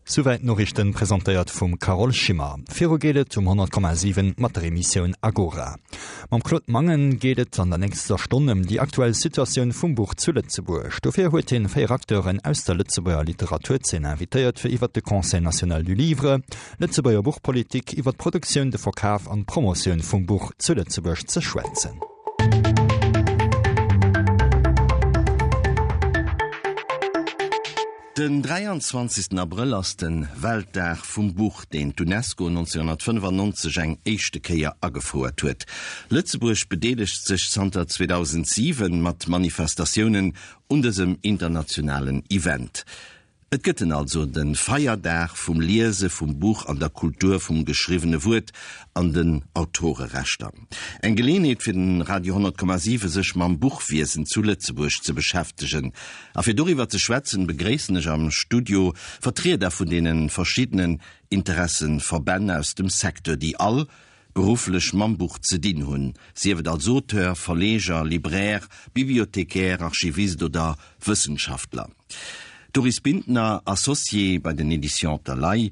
Souwäit d'Noriichten, presentéiert vum Carole Schimmer. Viru geet et um 100,7 mat der Emissioun Agora. Mam Claude Mangen geet et an der nächster Stonn ëm déi aktuell Situatioun vum Buch zu Lëtzebuerg. Dofir huet hien 4 Acteuren aus der Lëtzebuerger Literaturzeen invitéiert fir iwwert de Conseil national du livre, Lëtzebuerger Buchpolitik, iwwer d'Produktioun, de Verkaf an d'Promotioun vum Buch zu Lëtzebuerg ze schwätzen. Den 23 Abrëll ass de Weltdag vum Buch, deen d'UNESCO 1995 eng éischte Kéier agefouert huet. Lëtzebuerg bedeelegt sech zanter 2007 mat Manifestatiounen un dësem internationalen Event. Et gëtt en also, de Feierdag vum Liese vum Buch an der Kultur vum geschriwwene Wuert an den Autorerechter. Eng Geleeënheet fir den Radio 10,7 sech mam Buchwiesen zu Lëtzebuerg ze beschäftegen. A fir doriwwer ze schwätzen, begréissen ech am Studio Vertrieder vun deene verschiddenen Interesseverbänn aus dem Secteur, déi all berufflech mam Buch ze dinn hunn, sief et als Auteur, Verleger, Libraire, Bibliothécaire, Archivist oder Wëssenschaftler. Doris Bintner, Associée bei den Editions Thalay,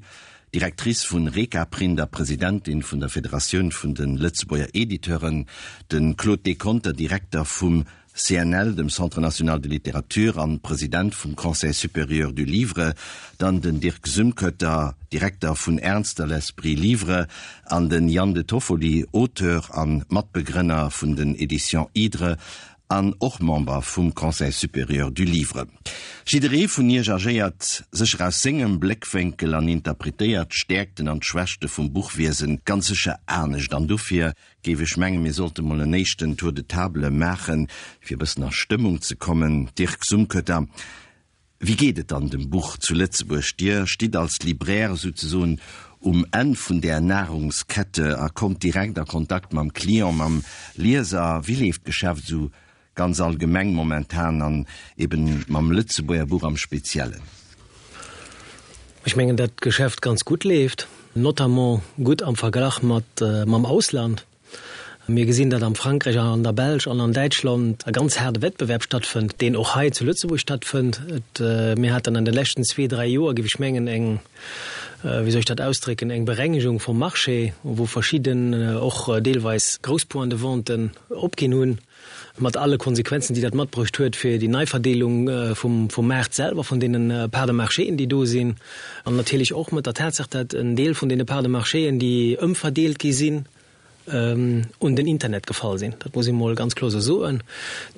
Directrice vun Rekaprint a Presidentin vun der Federatioun vun de Lëtzebuerger Editeuren, de Claude Deconter, Direkter vum CNL, dem Centre national de littérature, an President vum Conseil supérieur du livre, dann den Dirk Sümkötter, Direkter vun Ernster l'Esprit Livre, an den Yann de Toffoli, Auteur an Matbegrënner vun den Editions Hydre an och Member vum Conseil supérieur du livre. Jidderee vun iech agéiert sécher aus sengem Bléckwénkel an interpretéiert d'Stäerkten an d'Schwächte vum Buchwiesen ganz sécher anescht an dofir géif ech mengen, mir sollte mol en éischten Tour de table maachen, fir e bëssen a Stëmmung ze kommen. Dirk Sumkötter, wéi geet et dann dem Buch zu Lëtzebuerg? Dir stitt als Libraire souzesoen um Enn vun där Nahrungskette a kommt direkt a Kontakt mam Client, mam Lieser. Wéi leeft d'Geschäft esou Ganz allgemeng momentan an eben mam Lëtzebuerger Buch am Speziellen. Ech mengen, dat d'Geschäft ganz gutt leeft, notamment gutt am Verglach mat mam Ausland. Mir gesinn, datt am Frankräich an an der Belsch an an Däitschland e ganz haarde Wettbewerb stattfënnt, deen och hei zu Lëtzebuerg stattfënnt. Et, mir haten an de leschten zwee, dräi Joer, géif ech mengen, eng, wéi soll ech dat ausdrécken, eng Berengegung vum Marché, wou verschidden och deelweis grouss Points-de-venten opginn hunn. mat alle Konsequenzen, déi dat matbruecht huet fir déi Neiverdeelung vum Maart selwer, vun deene Parts de marchéen, déi do sinn, an natierlech och mat der Tatsaach, dat en Deel vun deene Parts de marchéen, déi ëmverdeelt gi sinn, un den Internet gefall sinn. Dat muss ee mol ganz kloer esou soen.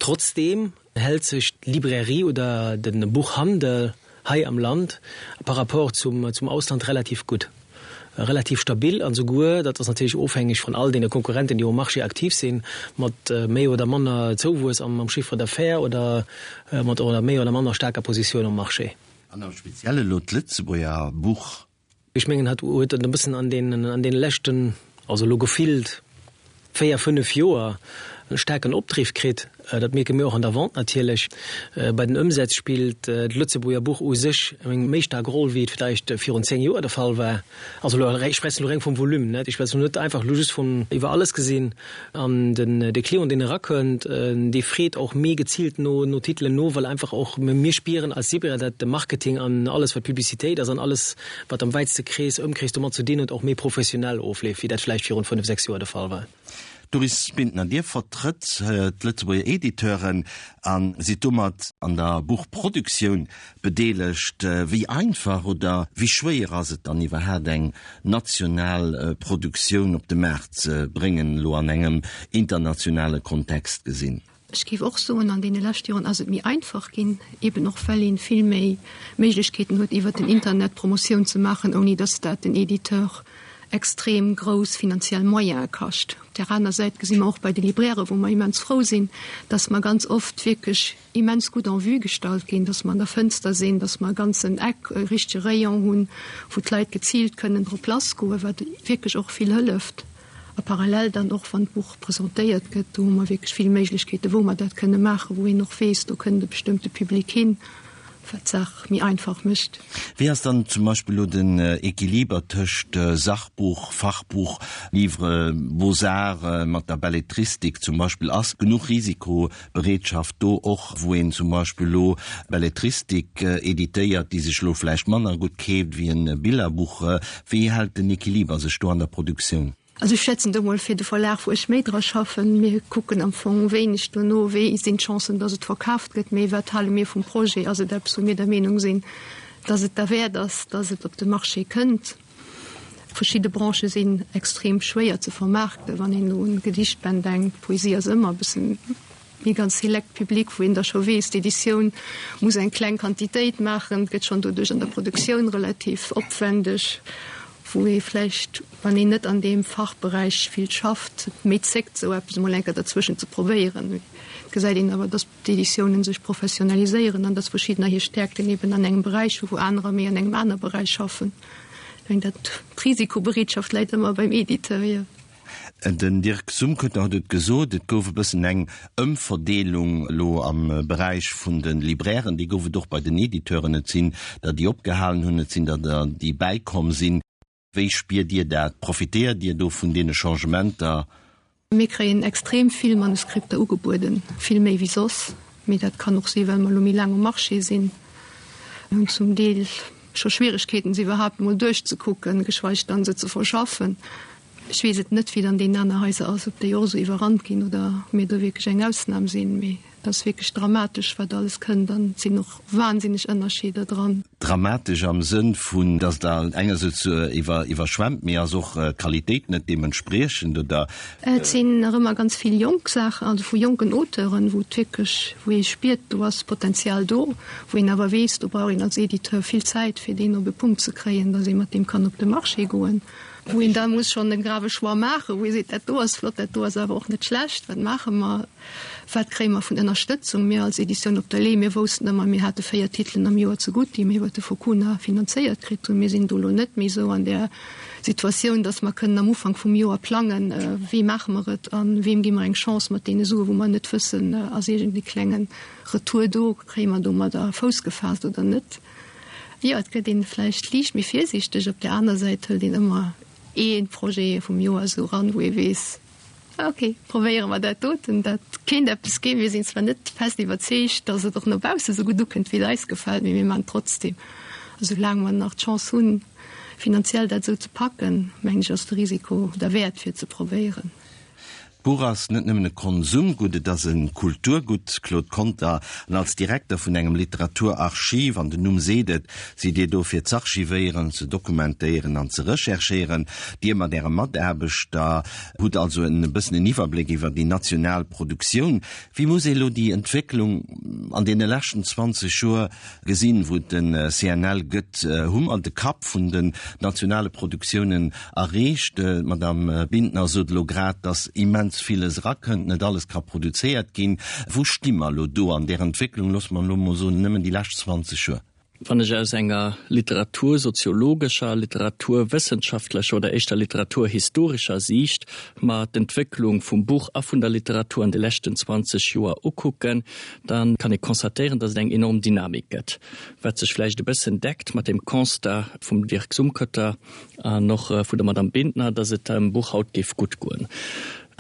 Trotzdeem hält sech d'Librairie oder de Buchhandel hei am Land par rapport zum zum Ausland relativ gutt, relativ stabil an souguer, dat ass natierlech ofhängeg vun all deene Konkurrenten, déi um Marché aktiv sinn, mat méi oder manner Zouwuess am Chiffre d'affaires oder mat oder méi oder manner staarker Positioun um Marché. An am Spezielle elo d'Lëtzebuerger Buch. Ech mengen, hat huet et e bëssen an deenen, an deene leschten, also elo gefillt 4, 5 Joer e staarken Opdriff kritt. Dat mierke mir och an der Vente natierlech. Bei den Ëmsätz spillt d'Lëtzebuerger Buch u sech eng méi staark Roll, wéi et vläicht virun 10 Joer de Fall war. Also elo, ech schwätzen elo reng vum Volume, net? Ech schwätzen elo net einfach elo just vun iwwer alles gesinn. An den de Client, deen erakënnt, dee freet och méi geziilt no no Titelen no, well einfach och mir spieren als Sibra, dat de Marketing an alles wat Publicitéit ass an alles wat am wäitste Krees, Ëmkrees domat ze dinn huet, och méi professionell ofleeft, wéi dat vläicht virun 5, 6 Joer de Fall war. Doris Bintner, Dir vertrëtt d'Lëtzebuerger Editeuren a sidd domat an der Buchproduktioun bedeelegt. Wéi einfach oder wéi schwéier ass et dann iwwerhaapt eng national Produktioun op de Maart ze bréngen, elo an engem internationale Kontext gesinn? Ech géif och soen, an deene leschte Joren ass et méi einfach ginn, eben och well ee vill méi Méiglechkeeten huet, iwwert den Internet Promotioun ze maachen, ouni datt dat den Editeur extrem grouss finanziell Moyene kascht. Op där aner Säit gesi mer och bei de Librairen, wou mer immens frou sinn, datt mer ganz oft wierklech immens gutt en vue gestallt ginn, dass mer an der Fënster sinn, dass mer e ganzen Eck, e richtege Rayon hunn, wou d'Leit geziilt kënnen drop lassgoen, wat wierklech och vill hëlleft. A parallel dann och, wann d'Buch presentéiert gëtt, do hu mer wierklech vill Méiglechkeeten, wou mer dat kënne maachen, wou een och weess, do kënnt e bestëmmte Public hin. Wat d'Saach méi einfach mécht. Wéi ass dann zum Beispill elo den Equiliber tëscht Sachbuch, Fachbuch, Livre Beaux-Arts mat der Belletristik zum Beispill? Ass genuch Risikobereetschaft do, och wou een zum Beispill elo Belletristik editéiert, déi sech elo vläicht manner gutt keeft wéi e Billerbuch? Wéi hält den Equiliber sech do an der Produktioun? Also ech schwätzen do mol fir de Verlag, wou ech méi dra schaffen. Mir kucken am Fong wéineg dono, wéi sinn d'Chancen, datt et verkaaft gëtt, mee wat hale mir vum Projet? Ass et eppes, wou mir der Meenung sinn, datt et derwäert ass, datt et op de Marché kënnt? Verschidde Branchë sinn extrem schwéier ze vermaarkten, wann een elo un Gedichtbänn denkt. Poesie ass ëmmer e bëssen méi ganz select Public, wou een da scho weess, d'Editioun muss eng kleng Quantitéit maachen, gëtt schonn doduerch an der Produktioun relativ opwendeg, wou ee vläicht, wann een net an deem Fachberäich vill schafft, méi zéckt, esou eppes emol eng Kéier derzwëschen ze probéieren. Et gesäit een awer, datt d'Editiounen sech professionaliséieren an datt verschiddener hir Stäerkten eben an engem Beräich hu wou anerer méi an engem aner Beräich schaffen. Ech mengen, dat d'Risikobereetschaft läit ëmmer beim Editeur, jo. Den Dirk Sumkötter huet et gesot, et gouf e bëssen eng Ëmverdeelung elo am Beräich vun de Librairen. Déi gouf et och bei den Editeuren. Et sinn der, déi opgehalen hunn, et sinn der, déi bäikomm sinn. Wéi spiert Dir dat? Profitéiert Dir do vun deene Changementer? Mir kréien extrem vill Manuskripter ugebueden, vill méi wéi soss. Mee dat kann och si well mer elo méi laang um Marché sinn. Mir hunn zum Deel scho Schwieregkeeten, se iwwerhaapt emol duerchzekucken, geschweig dann se ze verschaffen. Ech weess et net, wéi et an deenen aner Haiser ass, ob déi och esou iwwerrannt ginn oder ob mir do wierklech eng Ausnam sinn. Mee et ass wierklech dramatesch, wat alles kënnt an et sinn och wahnsinneg Ënnerscheeder dran. Dramatesch am Sënn vun, datt der engersäits iwwer iwwerschwemmt, mee ass och d'Qualitéit net deementspriechend, oder? Et sinn nach ëmmer ganz vill jonk Saachen, also vu jonken Auteuren, wou et wierklech, wou ee spiert, do ass Potenzial do, wou een awer weess, do brauch een als Editeur vill Zäit, fir deen op e Punkt ze kréien, datt ee mat deem kann op de Marché goen. Wou een da muss schonn e grave Choix maachen, wou ee seet, dat do ass flott, dat do ass awer och net schlecht, wat maache mer, wat kréie mer vun Ënnerstëtzung? Mir als Editioun Op der Le'h, mir woussten ëmmer, mir hate 4 Titelen am Joer zegutt, déi mir iwwer de Focuna finanzéiert kritt hunn. Mir sinn do elo net méi esou an där Situatioun, datt mer kënnen am Ufank vum Joer plangen, wéi maache mer et a weem gi mer eng Chance mat deene Suen, wou mer net wëssen, ass iergend e klenge Retour do, kréie mer domadder Fouss gefaasst oder net. Jo, et gëtt een vläicht liicht méi virsiichteg. Op där aner Säit hëlt een ëmmer ee Projet vum Joer esou eran, wou ee weess, ok, probéiere mer dat doten, dat kéint eppes ginn. Mir sinn zwar net fest iwwerzeegt, datt et och no bausse sou gutt ukënnt, wéi et eis gefält, mee mir maachen et trotzdeem. A soulaang mer nach d'Chance hunn, finanziell dat esou ze packen, mengen ech, ass de Risiko derwäert, fir et ze probéieren. D'Buch ass net nëmmen e Konsumgutt, et ass e Kulturgutt. Claude Conter, An als Direkter vun engem Literaturarchiv, an den Numm seet et, sidd Dir do fir z'archivéieren, ze dokumentéieren an ze recherchéieren. Dir mat Äre Mataarbechter hutt also en bëssen en Iwwerbléck iwwer déi national Produktioun. Wéi muss ee lo déi Entwécklung an deene leschten 20 Joer gesinn, wou et de CNL gëtt, hu mer de Kapp vun den nationale Produktiounen erreecht. D'Madame Bintner sot elo grad, datt immens villes erakënnt, net alles ka produzéiert ginn. Wou sti mer elo do an där Entwécklung, loosse mer elo emol soen, nëmmen déi lescht 20 Joer? Wann ech aus enger literatursoziologescher, literaturwëssenschaftlecher oder éischter literaturhistorescher Siicht mer d'Entwécklung vum Buch a vun der Literatur an de leschten 20 Joer ukucken, da kann ee constatéieren, dass et eng enorm Dynamik gëtt, wat sech vläicht e bëssen deckt mat dem Constat vum Dirk Sumkötter an och vun der Madame Bintner, dass et dem Buch haut géif gutt goen.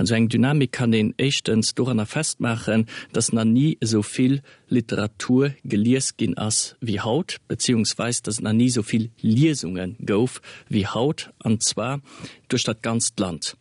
An esou eng Dynamik kann een éischtens doranner festmaachen, dass nach ni esou vill Literatur gelies ginn ass wéi haut, beziehungsweis dass et nach ni esou vill Liesunge gouf wéi haut, an zwar duerch dat ganzt Land.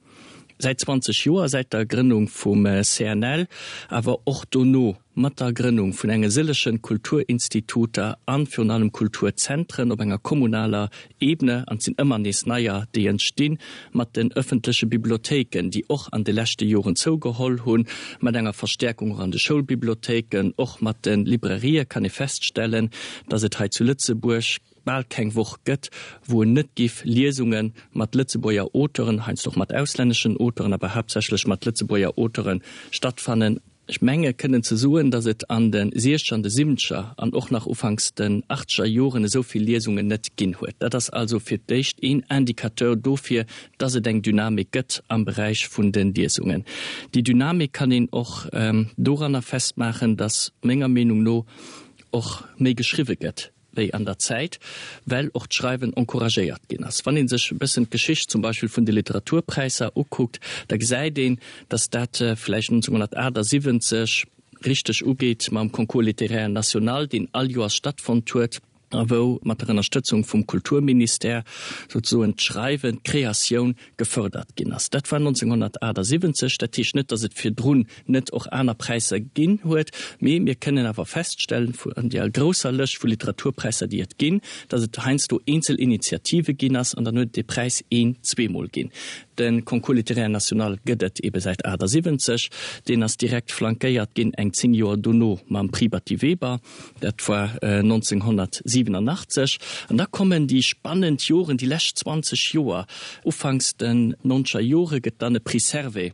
Säit 20 Joer, säit der Grënnung vum CNL, awer och dono mat der Grënnung vun enge sëllege Kulturinstituter an virun allem Kulturzentren op enger kommunaler Ebene, an et sinn ëmmer nees neier, déi entstinn, mat den ëffentleche Bibliothéiken, déi och an de leschte Joren zougeholl hunn, mat enger Verstäerkung och an de Schoulbibliothéiken, och mat de Librairië kann ee feststellen, dass et hei zu Lëtzebuerg bal keng Woch gëtt, wou en net giff Liesunge mat Lëtzebuerger Auteuren, heiansdo och mat auslänneschen Auteuren, awer haaptsächlech mat Lëtzebuerger Auteuren stattfannen. Ech menge kënnen ze soen, datt et an de siechzeger an de siwwenzeger an och nach ufanks den achtzeger Joren esou vill Liesungen net ginn huet. Dat ass also fir d'éischt een Indicateur dofir, datt et eng Dynamik gëtt am Beräich vun de Liesungen. Déi Dynamik kann een och doranner festmaachen, datt menger Meenung no. och méi geschriwwe gëtt wéi an der Zäit, well och d'Schreiwen encouragéiert ginn ass. Wann ee sech e bëssen d'Geschicht zum Beispill vun de Literaturpräisser ukuckt, da gesäit een, datt dat vläicht 1978 richteg ugeet mam Concours littéraire national, deen all Joers stattfonnt huet a wou mat der Ënnerstëtzung vum Kulturministère souzesoen d'Schreiwen, d'Kreatioun gefërdert ginn ass. Dat war 1978. Dat heescht net, datt et virdrun net och aner Präisser ginn huet, mee mir kënnen awer feststellen, an deer grousser Lëscht vu Literaturpräisser, déi et ginn, datt et heiansdo eenzel Initiative ginn ass an dann huet et dee Präis een-, zweemol ginn. De Concours littéraire national gëtt et ebe säit 78. Deen ass direkt flankéiert ginn eng 10 Joer dono mam Prix Batty Weber, dat war 1987. An da kommen déi spannend Joren, déi lescht 20 Joer. Ufanks den nonzeger Jore gëtt dann e Prix Servais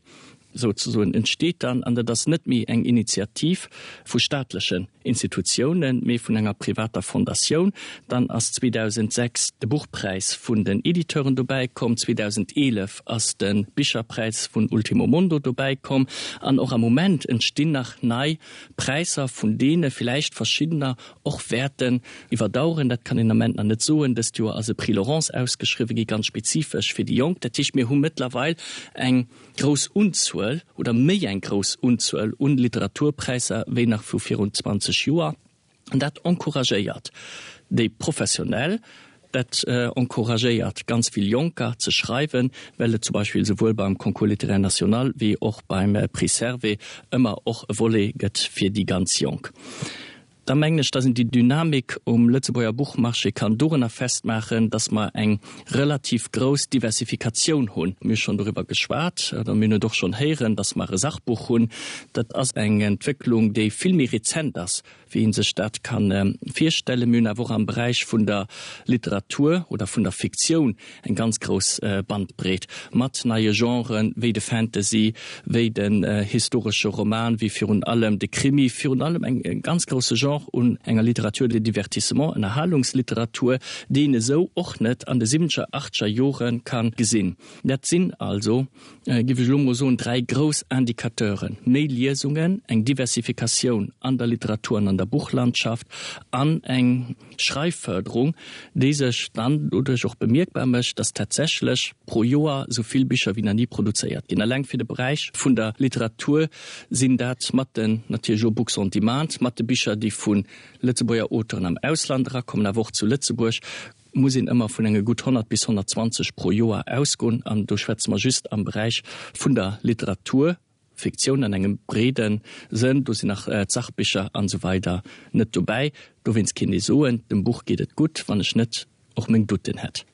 souzesoen entsteet dann, an dat ass net méi eng Initiativ vu staatlechen Institutiounen, mee vun enger privater Fondatioun. Dann ass 2006 de Buchpräis vun den Editeuren dobäi komm, 2011 ass de Bicherpräis vun Ultimo Mondo dobäi komm an och am Moment entstinn nach nei Präisser, vun deene villäicht verschiddener och wäerten iwwerdaueren. Dat kann een am Ament nach net soen. Dëst Joer ass e Prix Laurence ausgeschriwwe gi, ganz spezifesch fir déi Jonk. Dat heescht, mir hu mëttlerweil eng grouss Unzuel oder méi eng grouss Unzuel un Literaturpräisser wéi nach vu virun 20 Joer. An dat encouragéiert déi Professionell, dat encouragéiert ganz vill Jonker ze schreiwen, well et zum Beispill souwuel beim Concours littéraire national wéi och beim Prix Servais ëmmer och e Volet gëtt fir déi ganz Jonk. Da mengen ech, dass een déi Dynamik um Lëtzebuerger Buchmarché kann dorunner festmaachen, dass mer eng relativ grouss Diversifikatioun hunn. Mir hu schonn doriwwer geschwat, oder mir hunn et och schonn héieren, dass mer e Sachbuch hunn. Dat ass eng Entwécklung, déi vill méi rezent ass, wéi ee sech dat ka virstellen. Mir hunn awer och am Beräich vun der Literatur oder vun der Fiktioun eng ganz grouss Bandbreet mat neie Genren, wéi de Fantasy, wéi den historesche Roman, wéi virun allem de Krimi, virun allem eng ganz grousse Genre un enger Littérature de divertissement, Ënnerhalungsliteratur, déi een esou och net an de siwwenzeger, achtzeger Jore ka gesinn. Dat sinn also, géif ech elo mol soen, dräi grouss Indicateuren, méi Liesungen, eng Diversifikatioun an der Literatur an an der Buchlandschaft an eng Schreifförderung, déi sech dann doduerch och bemierkbar mécht, dass tatsächlech pro Joer esou vill Bicher wéi nach ni produzéiert ginn. Eleng fir de Beräich vun der Literatur sinn dat mat den, natierlech elo Books on Demand, mat de Bicher, déi vu Lëtzebuerger Auteuren am Ausland erakommen, awer och zu Lëtzebuerg, muss een ëmmer vun enge gutt 100 bis 120 pro Joer ausgoen. An do schwätze mer just am Beräich vun der Literatur. Fiktioun an engem breede Sënn, do sinn nach d'Sachbicher an esou weider net dobäi. Dowéinst kéint ee soen, dem Buch geet et gutt, wann ech net och meng Doutten hätt.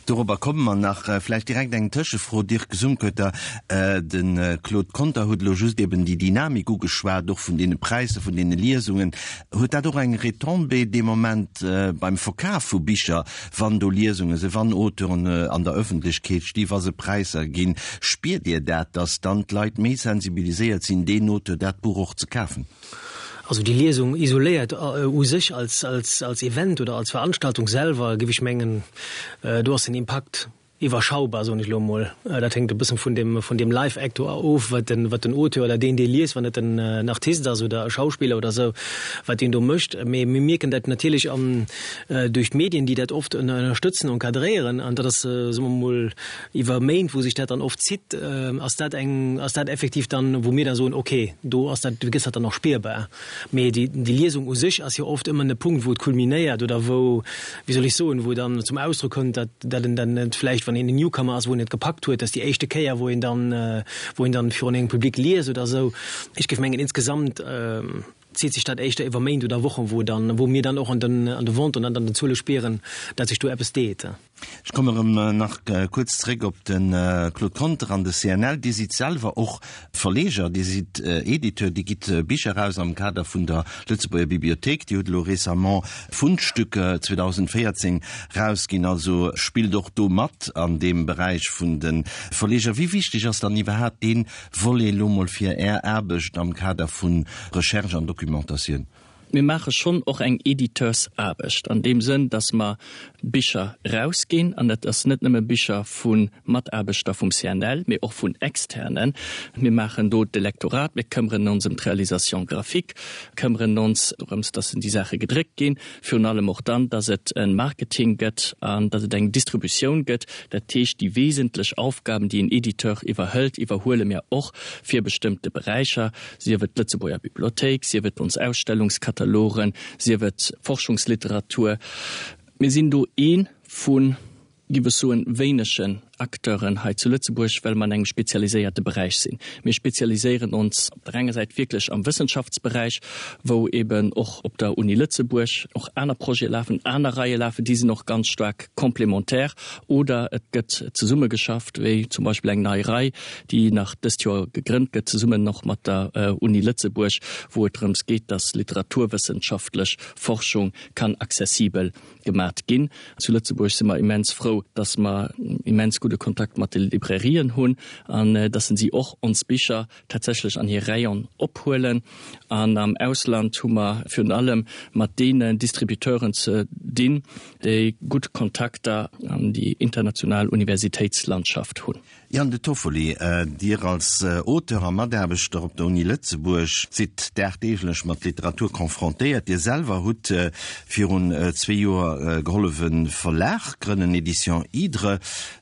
Dorobber komme mer nach. Vläicht direkt eng Tëschefro, Dirk Sumkötter. De Claude Conter huet elo just eben déi Dynamik ugeschwat, och vun deene Präisser, vun deene Liesungen. Huet dat och eng Retombée dee Moment beim Verkaf vu Bicher, Wann do Liesunge sinn, wann Auteuren an der Ëffentlechkeet sti, wa se Präisser ginn, spiert Dir dat, datt dann d'Leit méi sensibiliséiert sinn, deen Auteur, dat Buch och ze kafen? Also déi Liesung isoléiert u sech als, als, als Event oder als Veranstaltung selwer, géif ech mengen, do ass den Impakt iwwerschaubar, soen ech elo emol. Dat hänkt e bëssen vun dem, vun deem Live-Act do of, wat den, wat den Auteur oder deen, dee liest, wann et en, en Artist ass oder e Schauspiller oder esou, wat deen do mécht. Mee mir mierken dat natierlech an, duerch d'Medien, déi dat oft ënnerstëtzen, encadréieren. An dat ass, soe mer emol, iwwer Méint, wou sech dat dann oft zitt, ass dat eng, ass dat effektiv dann, wou mir da soen, okay, do ass dat, do gëtt dat dann och spierbar. Mee déi, déi Liesung u sech ass jo oft ëmmer e Punkt, wou et kulminéiert oder wou, wéi soll ech soen, wou dann zum Ausdrock kënnt, datt, datt en dann net vläicht, wann een en Newcomer ass, wou en et gepackt huet, datt déi éischte Kéier, wou een dann, wou een dann virun engem Public liest oder esou. Ech géif mengen, insgesamt zitt sech dat éischter iwwer Méint oder Wochen, wou dann, wou mir dann och an den, an de Venten an an den Zuele spieren, datt sech do eppes deet. Ech komme erëm nach kuerz zréck op de Claude Conter an de CNL. Dir sidd selwer och Verleger, Dir sidd Editeur, Dir gitt Bicher eraus am Kader vun der Lëtzebuerger Bibliothéik. Dir hutt elo récemment Fundstücke 2014 erausginn, also spillt och do mat an deem Beräich vun de Verleger. Wéi wichteg ass dann iwwerhaapt dee Volet elo mol fir Är Aarbecht am Kader vu Recherche an Documentatioun? Mir maache schonn och eng Editeursaarbecht an deem Sënn, datt mer Bicher erausginn, an dat ass net nëmme Bicher vu Mataarbechter vum CNL, mee och vun Externen. Mir maachen do de Lektorat, mir këmmeren ons ëm d'Réalisation graphique, këmmeren ons dorëms, datt déi Saache gedréckt ginn, virun allem och dann, datt et e Marketing gëtt an datt et eng Distributioun gëtt. Dat heescht, déi wesentlech Aufgaben, déi en Editeur iwwerhëlt, iwwerhuele mir och fir bestëmmte Beräicher. sief et d'Lëtzebuerger Bibliothéik, sief et ons Ausstellungskatalogen, sief et Forschungsliteratur. Mir sinn do ee vu, giff ech soen, wéinegen Acteuren hei zu Lëtzebuerg, well mer an engem spezialiséierte Beräich sinn. Mir spezialiséieren ons op der enger Säit wierklech am Wëssenschaftsberäich, wou eben och op der Uni Lëtzebuerg och aner Projete lafen, aner Reie lafen, déi sinn och ganz staark complémentaire, oder et gëtt zesummegeschafft, wéi zum Beispill eng nei Rei, déi nach dëst Joer gegrënnt gëtt, zesummen och mat der Uni Lëtzebuerg, wou et drëms geet, dass literaturwëssenschaftlech Forschung kann accessibel gemat ginn. Zu Lëtzebuerg si mer immens frou, dass mer immens gudde Kontakt mat de Librairien hunn an dass si och ons Bicher tatsächlech an hir Rayon ophuelen. An am Ausland hu mer virun allem mat deenen Distributeuren ze dinn, déi gutt Kontakter an déi international Universitéitslandschaft hunn. Ian De Toffoli, Dir als Auteur a Mataarbechter op der Uni Lëtzebuerg sidd dagdeeglech mat Literatur confrontéiert. Dir selwer hutt virun zwee Joer gehollef e Verlag grënnen, Editions Hydre.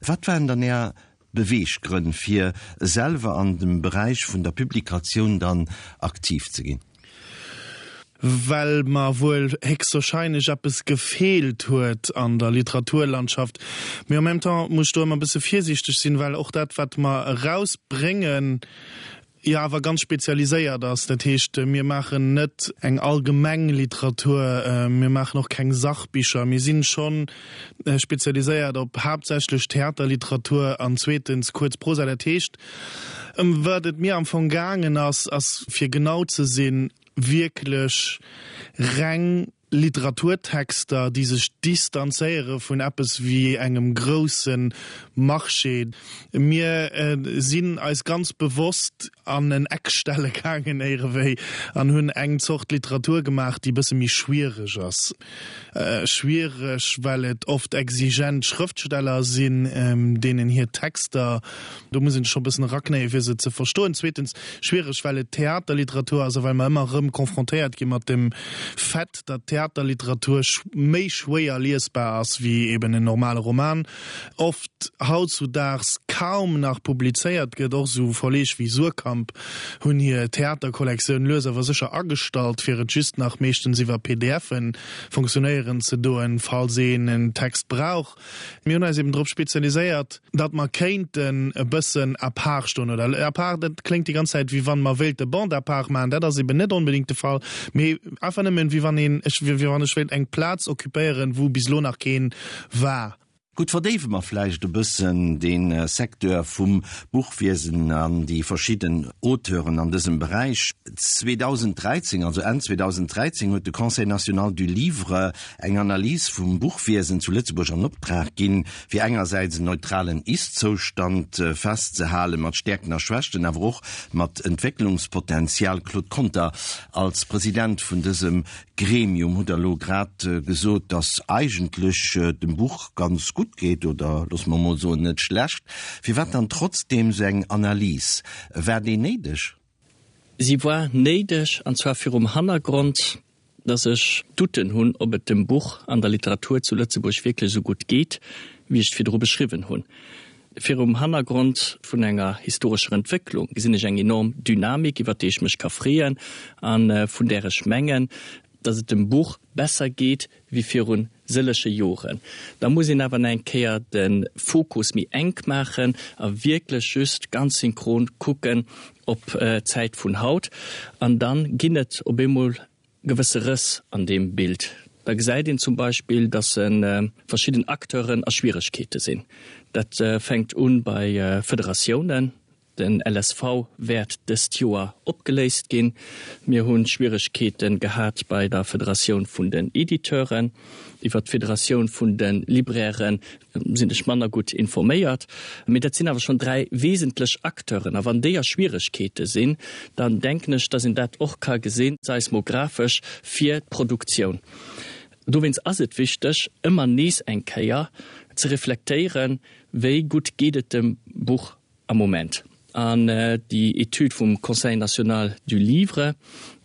Wat waren dann Är Beweeggrënn fir selwer an dem Beräich vun der Publikatioun dann aktiv ze ginn? Well mer wuel héchstwahrscheinlech eppes gefeelt huet an der Literaturlandschaft. Mee en même temps muss ech do ëmmer e bësse virsiichteg sinn, well och dat wat mer erausbréngen, jo awer ganz spezialiséiert ass. Dat heescht, mir maachen net eng allgemeng Literatur, mir maachen och keng Sachbicher. Mir sinn scho spezialiséiert op haaptsächlech Theaterliteratur an zweetens kuerz Prosa. Dat heescht, ëm wat et mir am Fong gaangen ass, ass fir genau ze sinn, wierklech reng Literaturtexter, déi sech distanzéiere vun eppes wéi engem grousse Marché. Mir sinn eis ganz bewosst an en Eck stelle gaangen éierewéi an hunn eng Zort Literatur gemaach, déi e bësse méi schwiereg ass. Schwiereg, well et oft exigent Schrëftsteller sinn, deenen hir Texter, do muss een sech scho e bëssen eraknéien, fir se ze verstoen. Zweetens schwiereg, well et Theaterliteratur ass a well mer ëmmer erëm confrontéiert gi mat dem Fait, datt Theaterliteratur méi schwéier liesbar ass wéi eben en normale Roman, oft hautzudaags kaum nach publizéiert gëtt. Och esou Verleeg wéi Suhrkamp hunn hir Theaterkollektioun lues awer sécher agestallt, fir et just nach meeschtens iwwer PDFe funktionéieren ze doen, falls een en Text brauch. Mir hunn eis eben drop spezialiséiert, datt mer kéinten e bëssen à part stoen, oder à part, dat kléngt déi ganz Zäit, wéi wann mer wéilte Bande à part maachen, dat ass eben net onbedéngt de Fall, mee einfach nëmmen, wéi wann een, ech, wéi wann ech wéilt eng Plaz occupéieren, wou bis elo nach keen war. Gutt, verdéiwe mer vläicht e bëssen dee Secteur vum Buchwiesen an déi verschidden Auteuren an dësem Beräich. 2013, also Enn 2013, huet de Conseil national du livre eng Analys vum Buchwiesen zu Lëtzebuerg an Optrag ginn, fir engersäits en neutralen Ist-Zoustand festzehalen, mat Stäerkten a Schwächten, awer och mat Entwécklungspotenzial. Claude Conter, als President vun dësem Gremium hutt Der elo grad gesot, datt eigentlech dem Buch ganz gutt geet, oder loosse mer emol soen, net schlecht. Firwat dann trotzdeem esou eng Analys? War déi néideg? Si war néideg, an zwar virum Hannergrond, dass ech Doutten hunn, ob et dem Buch an der Literatur zu Lëtzebuerg wierklech esou gutt geet, wéi ech et virdru beschriwwen hunn. Virum Hannergrond vun enger historescher Entwécklung gesinn ech eng enorm Dynamik, iwwer déi ech mech ka freeën a vun där ech mengen, dass et dem Buch besser geet wéi virun sëlleche Joren. Da muss een awer nach eng Kéier de Fokus méi enk maachen a wierklech just ganz synchron kucken op d'Zäit vun haut. An da ginn et op eemol gewësse Rëss an deem Bild. Da gesäit een zum Beispill, dass verschidden Acteuren a Schwieregkeete sinn. Dat fänkt u bei Federatiounen. Den LSV wäert dëst Joer opgeléist ginn. Mir hu Schwieregkeete gehat bei der Federatioun vun den Editeuren. Iwwer d'Federatioun vun de Libraire sinn ech manner gutt informéiert. Mee dat sinn awer schonn 3 wesentlech Acteuren. A wann déi a Schwieregkeete sinn, dann denken ech, dass een dat och ka gesinn, seismographesch, fir d'Produktioun. Dowéinst ass et wichteg, ëmmer nees eng Kéier ze reflektéieren, Wéi gutt geet et dem Buch am Moment? An déi Etüd vum Conseil national du livre,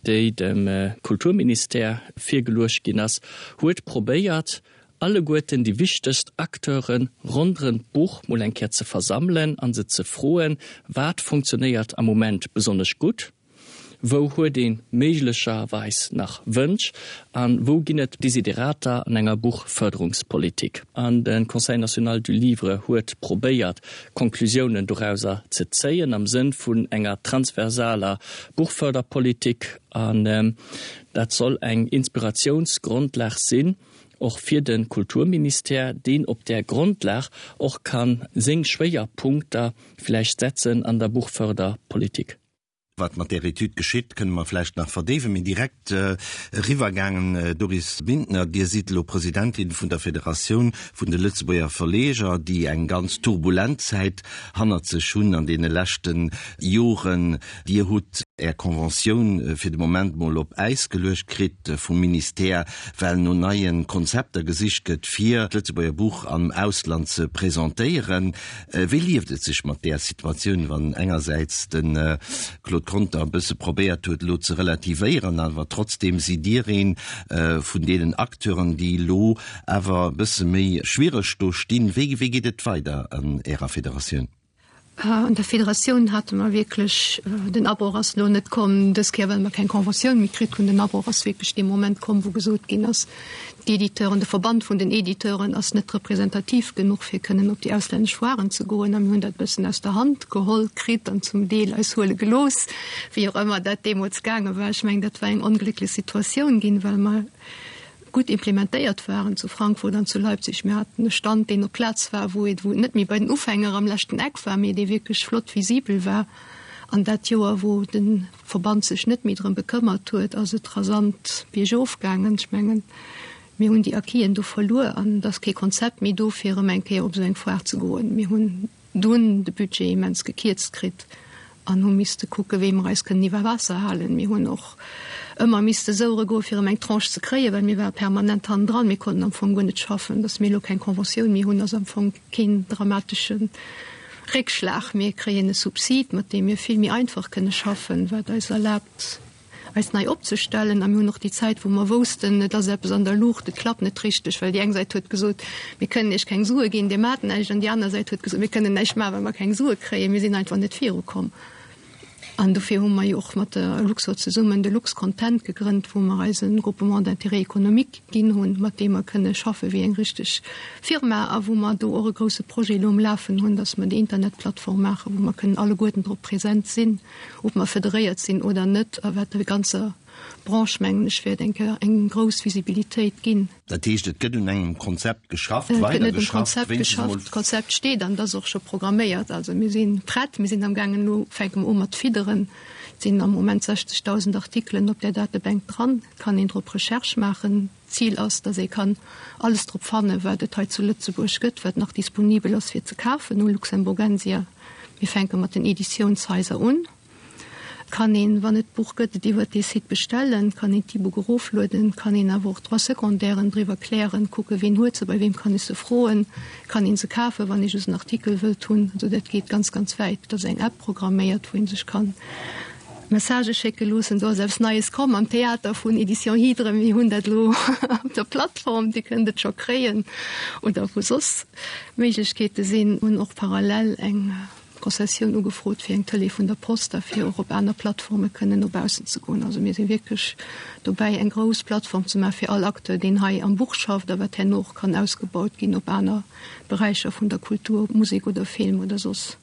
déi dem Kulturministère virgeluecht ginn ass, huet probéiert, alleguerten déi wichtegst Acteure ronderëm d'Buch mol eng Kéier ze versammelen a se ze froen, Wat funktionéiert am Moment besonnesch gutt? Wou huet ee méiglecherweis nach Wënsch a wou ginn et Desiderater an enger Buchförderungspolitik? An de Conseil national du livre huet probéiert, Konklusiounen dorauser ze zéien am Sënn vun enger transversaler Buchförderpolitik. An dat soll eng Inspiratiounsgrondlag sinn, och fir de Kulturministère, deen op där Grondlag och ka seng Schwéierpunkter vläicht setzen an der Buchförderpolitik. Wat mat där Etüd geschitt, kënne mer vläicht nach verdéiwen. Mee direkt eriwwergaangen, Doris Bintner, Dir sidd elo Presidentin vun der Federatioun vun de Lëtzebuerger Verleger, déi eng ganz turbulent Zäit hannert sech hunn an deene leschte Joren. Dir hutt Är Conventioun fir de Moment mol op Äis geluecht kritt vum Ministère, well no neie Konzepter gesicht gëtt, fir d'Lëtzebuerger Buch am Ausland ze presentéieren. Wéi lieft et sech mat där Situatioun, wann engersäits de Claude Conter e bësse probéiert huet, elo ze relativéieren, awer trotzdeem sidd Dir ee vun deenen Acteuren, déi elo awer e bësse méi schwiereg do stinn. Wéi geet et weider an Ärer Federatioun? An der Federatioun hate mer wierklech, den Abroch ass elo net komm dës Kéier, well mer keng Conventioun méi kritt hunn, den Abroch ass wierklech dee Moment komm, wou gesot ginn ass, D'Editeuren, de Verband vun den Editeuren ass net representativ genuch, fir kënnen op déi auslännesch Foiren ze goen. A mir hunn dat e bëssen aus der Hand geholl kritt an zum Deel eis huele gelooss, wéi och ëmmer dat deemools gaange war. Ech mengen, dat war eng onglécklech Situatioun ginn, well mer gutt implementéiert waren zu Frankfurt an zu Leipzig. Mir haten e Stand, deen op Plaz war, wou et wou et net méi bei den Ufänger am leschten Eck war, mee dee wierklech flott visibel war. An dat Joer, wou de Verband sech net méi drëm bekëmmert huet, ass et rasant biergof gaangen. Ech mengen, mir hunn déi Acquisen do verluer an et ass kee Konzept méi do, fir erëm eng Kéier op esou eng Foire ze goen. Mir hunn dunn de Budget immens gekierzt kritt an hu misste kucke wéi mer eis kënnen iwwer Waasser halen. Mir hunn och ëmmer misste souere goe fir erëm eng Tranche ze kréien, well mir ware permanent hannendran. Mir konnten am Fong guer net schaffen. Datt mir elo keng Conventioun méi hunn, ass am Fong keen dramatesche Réckschlag. Mir kréien e Subsid, mat deem mir vill méi einfach kënne schaffen, wat eis erlaabt, eis nei opzestellen. A mir hunn och déi Zäit, wou mer woussten, et ass eppes an der Luucht, et klappt net richteg, well déi eng Säit huet gesot, mir kënnen Iech keng Sue ginn, Dir maacht näischt, an déi aner Säit huet gesot, mir kënnen näischt maachen, well mer keng Sue kréien. Mir sinn einfach net virukomm. An dofir hu mer jo och mat der Luxor zesummen de Luxcontent gegrënnt, wou mer eis e Groupement d'intérêt économique ginn hunn, mat deem mer kënne schaffe wéi eng richteg Firma a wou mer do och e grouse Projet elo um Lafen hunn, dass mer déi Internetplattform maachen, wou mer kënnen alleguerten drop present sinn, ob mer federéiert sinn oder net, a wat der ganzer Branche, mengen ech, wäert eng Kéier eng grouss Visibilitéit ginn. Dat heescht, et gëtt un engem Konzept geschafft, weider geschafft, wéinstens emol. D'Konzept steet an et ass och scho programméiert. Also mir si prett, mir sinn amgaangen, elo fänke mer u mat fidderen. Et sinn am Moment 60.000 Artikelen op där Datebank dran. Et kann een drop Recherche maachen. D'Zil ass, datt ee kann alles drop fannen, wat et hei zu Lëtzebuerg gëtt, wat nach disponibel ass fir ze kafen u Luxemburgensia. Mir fänke mat den Editiounshaiser un. Kann een, wann et d'Buch gëtt, et iwwert dee Site bestellen, kann een d'E-Book eroflueden, kann een awer och d'Droits secondairen driwwer klären, kucken, ween huet se, bei weem kann ech se froen, kann een se kafen, wann ee just en Artikel wëllt hunn. Also dat geet ganz, ganz wäit. Et ass eng App programméiert, wou ee sech kann Messagë schécke loossen. Do ass eppes Neies komm am Theater vun Editions Hydre. Mir hunn dat elo op der Plattform, Dir kënnt et scho kréien oder wou soss Méiglechkeete sinn. Hunn och parallel eng. Concessioun ugefrot fir eng Tëlee vun der Post a fir och op aner Plattforme kënnen no baussen ze goen. Also mir si wierklech dobäi eng grouss Plattform ze maache fir all Acteur, deen hei am Buch schafft a wat herno och kann ausgebaut ginn op aner Beräicher vun der Kultur, ob Musek oder Film oder soss.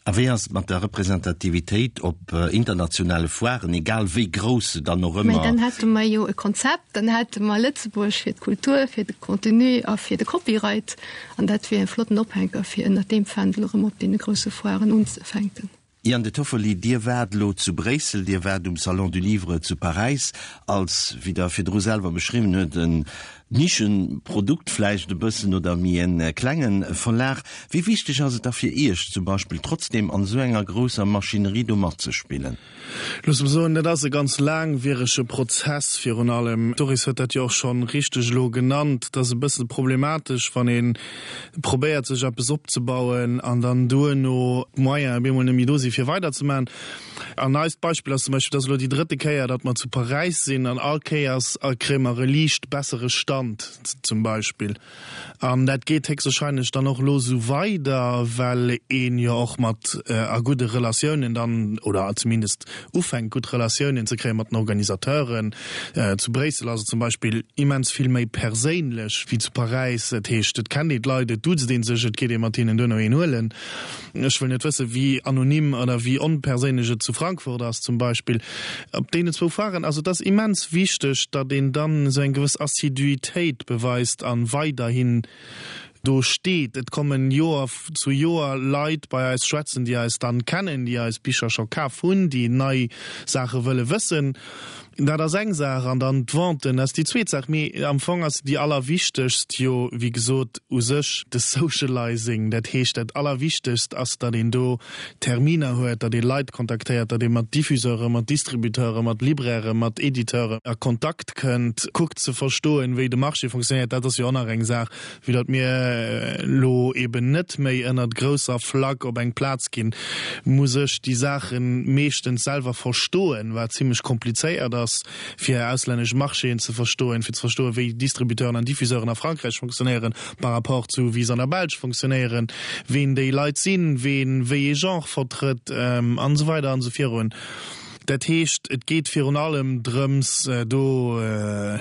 A wéi ass et mat der Representativitéit op internationale Foiren, egal wéi grouss se dann och ëmmer. Mä dann hätte mer jo e Konzept, dann hätte mer Lëtzebuerg fir d'Kultur, fir de Contenu a fir de Copyright. An dat wier e flotten Ophänker, fir ënnert deem Fändel erëm op deene grousse Foiren unzefänken. Ian De Toffoli, Dir waart elo zu Bréissel, Dir waart um Salon du Livre zu Paräis als, wéi Der virdru selwer beschriwwen huet, en Nischenprodukt vläicht e bëssen oder méi e klenge Verlag. Wéi wichteg ass et da fir Iech zum Beispill trotzdem an esou enger grousser Maschinerie do matzespillen? Looss mer soen, dat ass e ganz laangwierege Prozess virun allem. D'Doris huet dat jo och scho richteg elo genannt. Et ass e bësse problematesch, wann ee probéiert sech eppes opzebauen an dann duerno d'Moyenen op eemol net méi do si fir weiderzemaachen. An eist Beispill ass zum Beispill, et ass elo déi drëtte Kéier, datt mer zu Paräis sinn an all Kéiers kréie mer e liicht bessere Stand zum Beispill. An dat geet héchstwahrscheinlech dann och elo esou weider, well een jo och mat a gudde Relatiounen dann, oder zumindest ufänkt gutt Relatiounen ze kréie mat den Organisateuren. Zu Bréissel ass et zum Beispill immens vill méi perséinlech wéi zu Paräis. Dat heescht, et kennt een d'Leit, et duzt ee sech, et geet ee mat hinnen duerno een huelen. Ech wëll net wëssen, wéi anonym oder wéi onperséinlech et zu Frankfurt ass zum Beispill. Op deenen zwou Foiren, also et ass immens wichteg, datt een dann esou eng gewëss Assiduitéit beweist a weiderhin do steet. Et kommen Joer zu Joer Leit bei eis schwätzen, déi eis dann kennen, déi eis Bicher scho kaf hunn, déi nei Saache wëlle wëssen. Dat ass eng Saach, an dann d'Venten ass déi zweet Saach. Mee am Fong ass déi allerwichtegst jo, wéi gesot, u sech de Socializing. Dat heescht, dat Allerwichtegst ass, datt een do Terminer huet, datt ee Leit kontaktéiert, datt ee mat Diffuseuren, mat Distributeuren, mat Librairen, mat Editeuren a Kontakt kënnt, kuckt ze verstoen, wéi de Marché fonctionnéiert. Dat ass jo och nach eng Saach, Vue datt mir elo eben net méi ënnert grousser Flagg op eng Plaz ginn, muss ech déi Saache meeschtens selwer verstoen, wat zimlech komplizéiert ass, fir auslännesch Marchéen ze verstoen, fir ze verstoen, wéi Distributeuren an Diffuseuren a Frankräich fonctionnéieren par rapport zu wéi se an der Belsch fonctionnéieren, ween déi Leit sinn, ween wéi ee Genre vertrëtt an esou weider an esou virun. Dat heescht, et geet virun allem drëms, do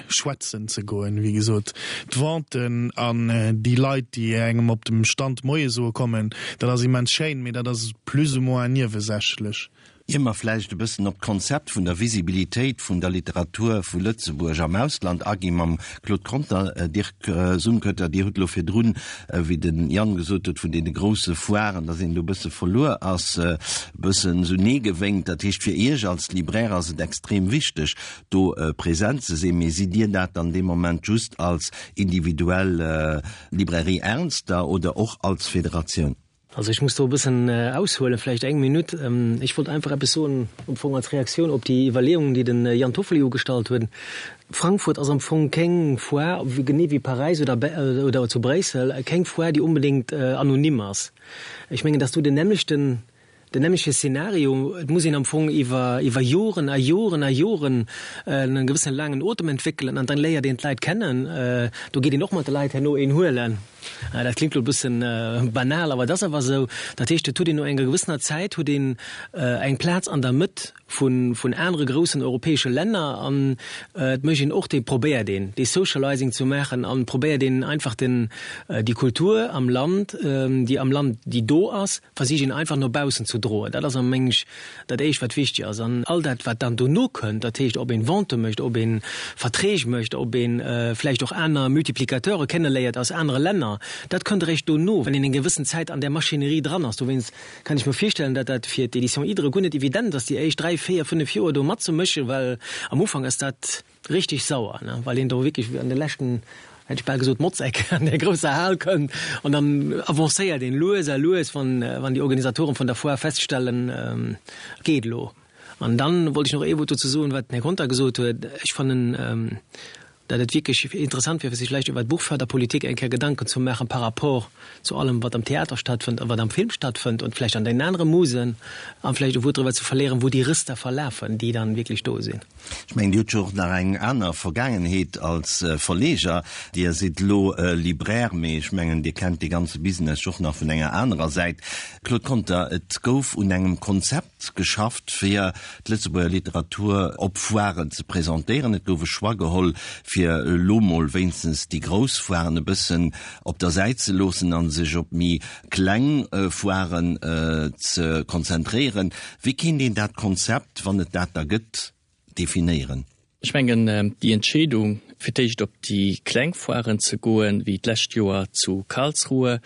schwätzen ze goen. Wéi gesot, d'Venten an déi Leit, déi engem op dem Stand Moie soe kommen, dat ass immens schéin, mee dat ass plus ou moins niewesächlech. Ier mer vläicht e bëssen op d'Konzept vun der Visibilitéit vun der Literatur vu Lëtzebuerg am Ausland agi mam Claude Conter, Dirk Sumkötter, Dir hutt elo virdrun, wéi de Yann gesot huet, vun deene grousse Foiren, datt een do e bësse verluer ass, e bëssen esou Nee gewénkt. Dat heescht, fir Iech als Libraire ass et extrem wichteg, do present ze sinn. Mee sidd Dir dat dann dee Moment just als individuell Librairie Ernster oder och als Federatioun? Also ech muss do e bëssen aushuelen, vläicht eng Minutt. Ech wollt einfach eppes soen am Fong als Reaktioun op déi Iwwerleeungen, déi de Yann Toffoli ugestallt huet. Frankfurt ass am Fong keng Foire, genee wéi Paräis oder oder zu Bréissel, keng Foire, déi onbedéngt anonym ass. Ech mengen, dass do den nämmlechten, den nämmleche Szenario, et muss een am Fong iwwer iwwer Joren a Joren a Joren e gewëssene laangen Otem entwéckelen an dann léiert een d'Leit kennen. Do geet een och mat de Leit herno een huelen. Dat klingt lo e bëssen banal, awer et ass awer esou. Dat heescht, et huet een no enger gewëssener Zäit huet een eng Plaz an der Mëtt vun, vun anere groussen europäesche Länner an et mécht een och dee, probéiert een dee Socializing ze maachen an probéiert een einfach den, déi Kultur am Land, déi am Land, déi do ass, versicht een einfach no baussen ze droen. Dat ass am meng ech dat éischt wat wichteg ass. An all dat wat dann dono kënnt, dat heescht ob een Vente mécht, ob een Verträg mécht, ob een vläicht och aner Multiplicateure kenneléiert aus anere Länner, dat kënnt eréischt dono, wann een eng gewëssen Zäit an där Maschinerie dran ass. Dowéinst kann ech mer virstellen, datt dat fir d'Éditions Hydre guer net evident ass, déi éischt dräi, véier, fënnef Joer do matzemëschen, well am Ufank ass dat, Richteg sauer, ne, well een do wierklech an de leschten, hätt ech bal gesot, Motzeck an där grousser Hal kënnt an dann avancéiert een lues a lues, wann, wann déi Organisatoren vun der Foire feststellen, et geet elo. An dann wollt ech nach ee Wuert dozou soen, wat den Här Conter gesot huet. Ech fannen, datt et wierklech interessant wier, fir sech vläicht iwwer d'Buchförderpolitik eng Kéier Gedanken ze maachen par rapport zu allem, wat am Theater stattfënnt a wat am Film stattfënnt und vläicht an den anere Musen, a vläicht e Wuert driwwer ze verléieren, wou déi Rëss da verlafen, déi dann wierklech do sinn. Ech mengen, Dir hutt jo och nach eng aner Vergaangenheet als Verleger. Dir sidd elo Libraire, mee ech mengen, Dir kennt dee ganze Business och nach vun enger anerer Säit. Claude Conter, et gouf un engem Konzept geschafft, fir d'Lëtzebuerger Literatur op Foiren ze presentéieren. Et gouf e Choix geholl, fir elo mol wéinstens déi grouss Foiren e bëssen op der Säit ze loossen a sech op méi kleng Foiren ze konzentréieren. Wéi kéint een dat Konzept, wann et dat da gëtt, definéieren? Ech mengen, déi Entscheedung, Fir d'éischt op déi kleng Foiren ze goen, wéi d'lescht Joer zu Karlsruhe.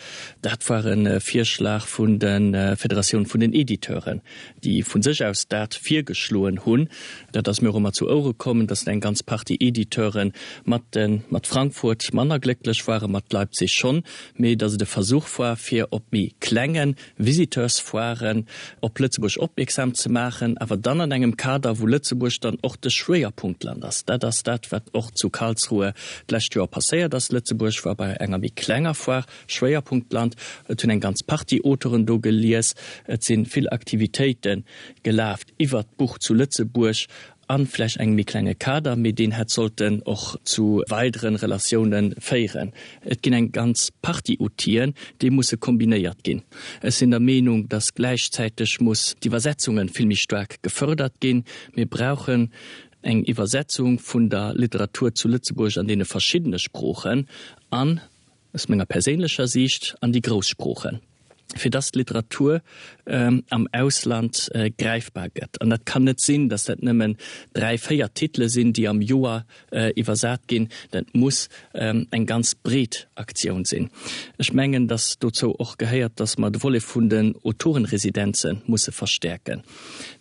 Dat war e Virschlag vun der Federatioun vun den Editeuren, déi vu sech aus dat virgeschloen hunn. Dat ass mir och ëmmer zu Ouere komm, datt eng ganz Partie Editeure mat de mat Frankfurt manner glécklech waren, mat Leipzig schonn, mee datt et e Versuch war, fir op méi klenge Visiteursfoiren op Lëtzebuerg opmierksam ze maachen, awer dann an engem Kader, wou Lëtzebuerg dann och de Schwéierpunktland ass. Dat ass dat, wat och zu Karlsruhe d'lescht Joer passéiert ass. Lëtzebuerg war bei enger méi klenger Foire Schwéierpunktland. Et hunn eng ganz Partie Auteuren do gelies. Et si vill Aktivitéite gelaf iwwert d'Buch zu Lëtzebuerg a vläicht engem méi klenge Kader, mee deen hätt sollten och zu weidere Relatiounen féieren. Et ginn eng ganz Partie Outiller, déi musse kombinéiert ginn. Ech sinn der Meenung, dass gläichzäiteg muss d'Iwwersetzunge vill méi staark gefördert ginn. Mir brauchen eng Iwwersetzung vun der Literatur zu Lëtzebuerg an deene verschiddene Sproochen an, aus menger perséinlecher Siicht, an déi grouss Sproochen, fir dass d'Literatur am Ausland gräifbar gëtt. An dat kann net sinn, dass dat nëmmen dräi, véier Titele sinn, déi am Joer iwwersat ginn. Dat muss eng ganz breet Aktioun sinn. Ech mengen, dass dozou och gehéiert, dass mer de Volet vun den Autorenresidenze musse verstäerken.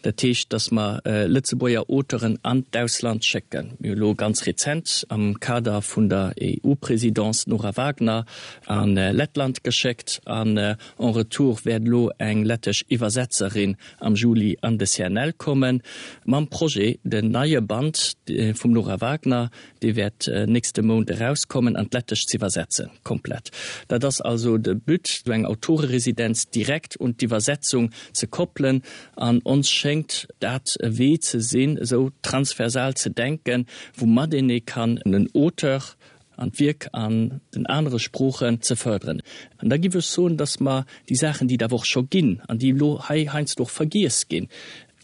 Dat heescht, dass mer Lëtzebuerger Auteuren an d'Ausland schécken. Mir hu lo ganz rezent am Kader vun der EU-Présidence d'Nora Wagner a Lettland geschéckt an en retour wäert elo eng lettesch Iwwersetzerin am Juli an de CNL kommen mam Projet, den neie Band vum Nora Wagner, Dee wäert nächste Mount erauskommen, an d'Lettesch z'iwwersetzen, komplett. Dat ass also de But, esou eng Autoreresidenz direkt un d'Iwwersetzung ze koppelen. An ons schéngt dat e Wee ze sinn, esou transversal ze denken, woumat een ee kann en Auteur an d'Wierk an den anere Sproochen ze fërderen. An da giff ech soen, dass mer déi Saachen, déi et awer och scho ginn an déi elo hei heiansdo och vergiess ginn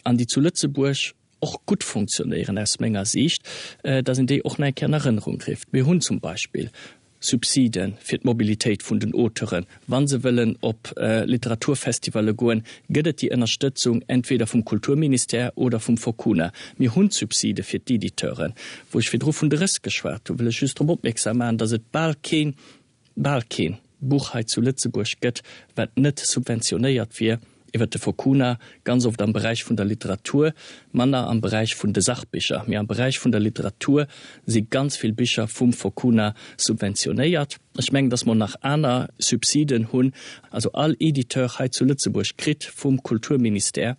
an déi zu Lëtzebuerg och gutt funktionéieren aus menger Siicht, dass een déi och nach eng Kéier an Erënnerung rifft. Mir hunn zum Beispill Subside fir d'Mobilitéit vun den Auteuren. Wa se wëllen op Literaturfestivalle goen, gëtt et déi Ënnerstëtzung entweder vum Kulturministère oder vum Focuna. Mir hunn d'Subside fir d'Editeuren. Wou ech virdru vun de Rëss geschwat hunn, wëll ech just drop opmierksam maachen, dass et bal keen, bal keen Buch hei zu Lëtzebuerg gëtt, wat net subventionéiert wier iwwert de Focuna, ganz oft am Beräich vun der Literatur, manner am Beräich vun de Sachbicher, mee am Beräich vun der Literatur si ganz vill Bicher vum Focuna subventionéiert. Ech mengen, dass mer nach aner Subsiden hunn. Also all Editeur hei zu Lëtzebuerg kritt vum Kulturministère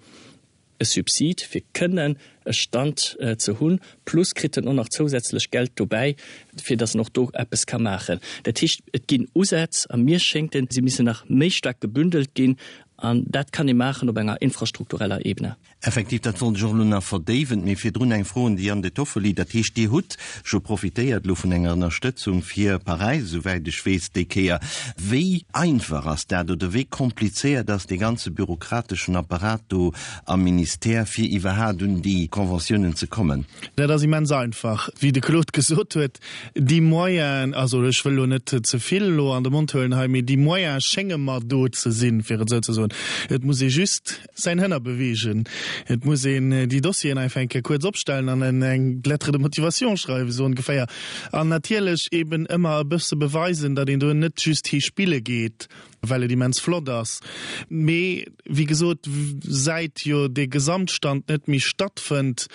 e Subsid fir kënnen e Stand ze hunn, plus kritt en och nach zousätzlech Geld dobäi, fir datt en och do eppes ka maachen. Dat heescht, et ginn Usätz a mir schéngt et, se missen nach méi staark gebündelt ginn an dat kann ee maachen op enger infrastruktureller Ebene. Effektiv, dat wollt ech och elo nach verdéiwen. Mee virdrun eng Fro un de Jan De Toffoli. Dat heescht, Dir hutt scho profitéiert elo vun enger Ënnerstëtzung fir Paräis, esouwäit ech weess, déi Kéier. Wéi einfach ass dat oder wéi komplizéiert ass dee ganze bürokrateschen Apparat do am Ministère, fir iwwerhaat un déi Conventiounen ze kommen? Dat ass immens einfach. Wéi de Claude gesot huet, déi Moyenen, also ech wëll elo net ze vill elo an de Mond huelen hei, mee déi Moyene schénge mer do ze sinn, fir et esou ze soen. Et muss ee just säin Hënner beweegen. Et muss een déi Dossieren einfach eng Kéier kuerz opstellen an eng Lettre de motivation schreiwen, esou ongeféier. An natierlech eben ëmmer e bësse beweisen, datt een do net just hi spille geet, well et immens flott ass. Mee wéi gesot, säit jo dee Gesamtstand net méi stattfënnt,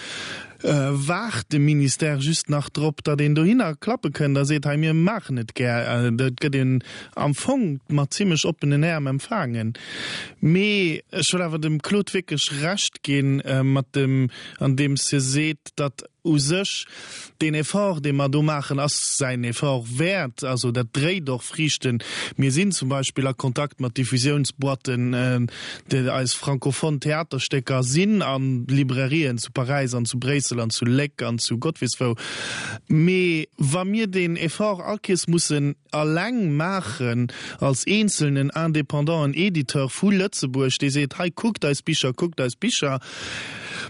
waart de Ministère just nach drop, datt een dohinner klappe kënnt a seet, hei mir maachen et gär. Dat gëtt een am Fong mat zimlech oppenen Äerm empfaangen. Mee ech wëll awer dem Claude wierklech Recht ginn, mat dem, andeems hie seet, datt u sech deen Effort, dee mer do maachen, ass säin Effort wäert. Also dat dréit och Friichten. Mir sinn zum Beispill a Kontakt mat Diffusiounsboîten, déi eis francophone Theaterstécker sinn a Librairien zu Paräis an zu Bréissel an zu Léck an zu Gott weess wou. Mee wa mir deen Effort all Kees mussen alleng maachen als eenzelnen indépendanten Editeur vu Lëtzebuerg, dee seet, hei kuckt eis Bicher, kuckt eis Bicher,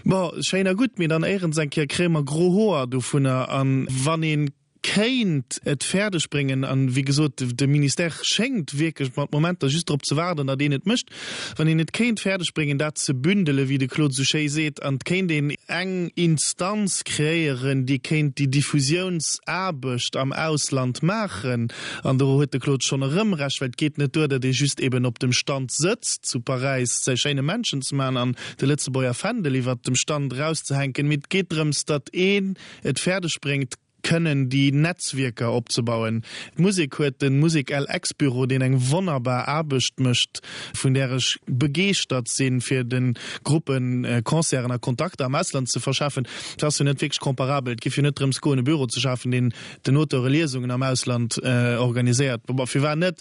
bon, schéin a gutt, mee dann éierens eng Kéier kréie mer gro Hoer dovunner. A wann ee. kéint et fäerdeg bréngen, an wéi gesot, de Ministère schéngt wierklech mat Momenter just drop ze waarden, datt een et mécht, wann een et kéint fäerdeg bréngen, dat ze bündelen, wéi de Claude esou schéi seet, an et kéint een eng Instanz kreéieren, déi kéint déi Diffusiounsaarbecht am Ausland maachen, an do huet de Claude schonn erëm Recht, well et geet net duer, datt ee just eben op dem Stand sëtzt zu Paräis, säi schéine Männchen ze maachen an de Lëtzebuerger Fändel iwwert dem Stand erauszehänken, mee et geet drëms, datt een et fäerdeg bréngt, kënnen déi Netzwierker opzebauen. D'Musek huet de Musek-LX-Büro, deen eng wonnerbar Aarbecht mécht, vun där ech begeeschtert sinn, fir de Gruppen Concerten a Kontakter am Ausland ze verschafen. Dat ass jo net wierklech comparabel. Et géif jo net drëms goen, e Büro ze schafen, deen den Auteure Liesungen am Ausland organiséiert. Bon, firwat net?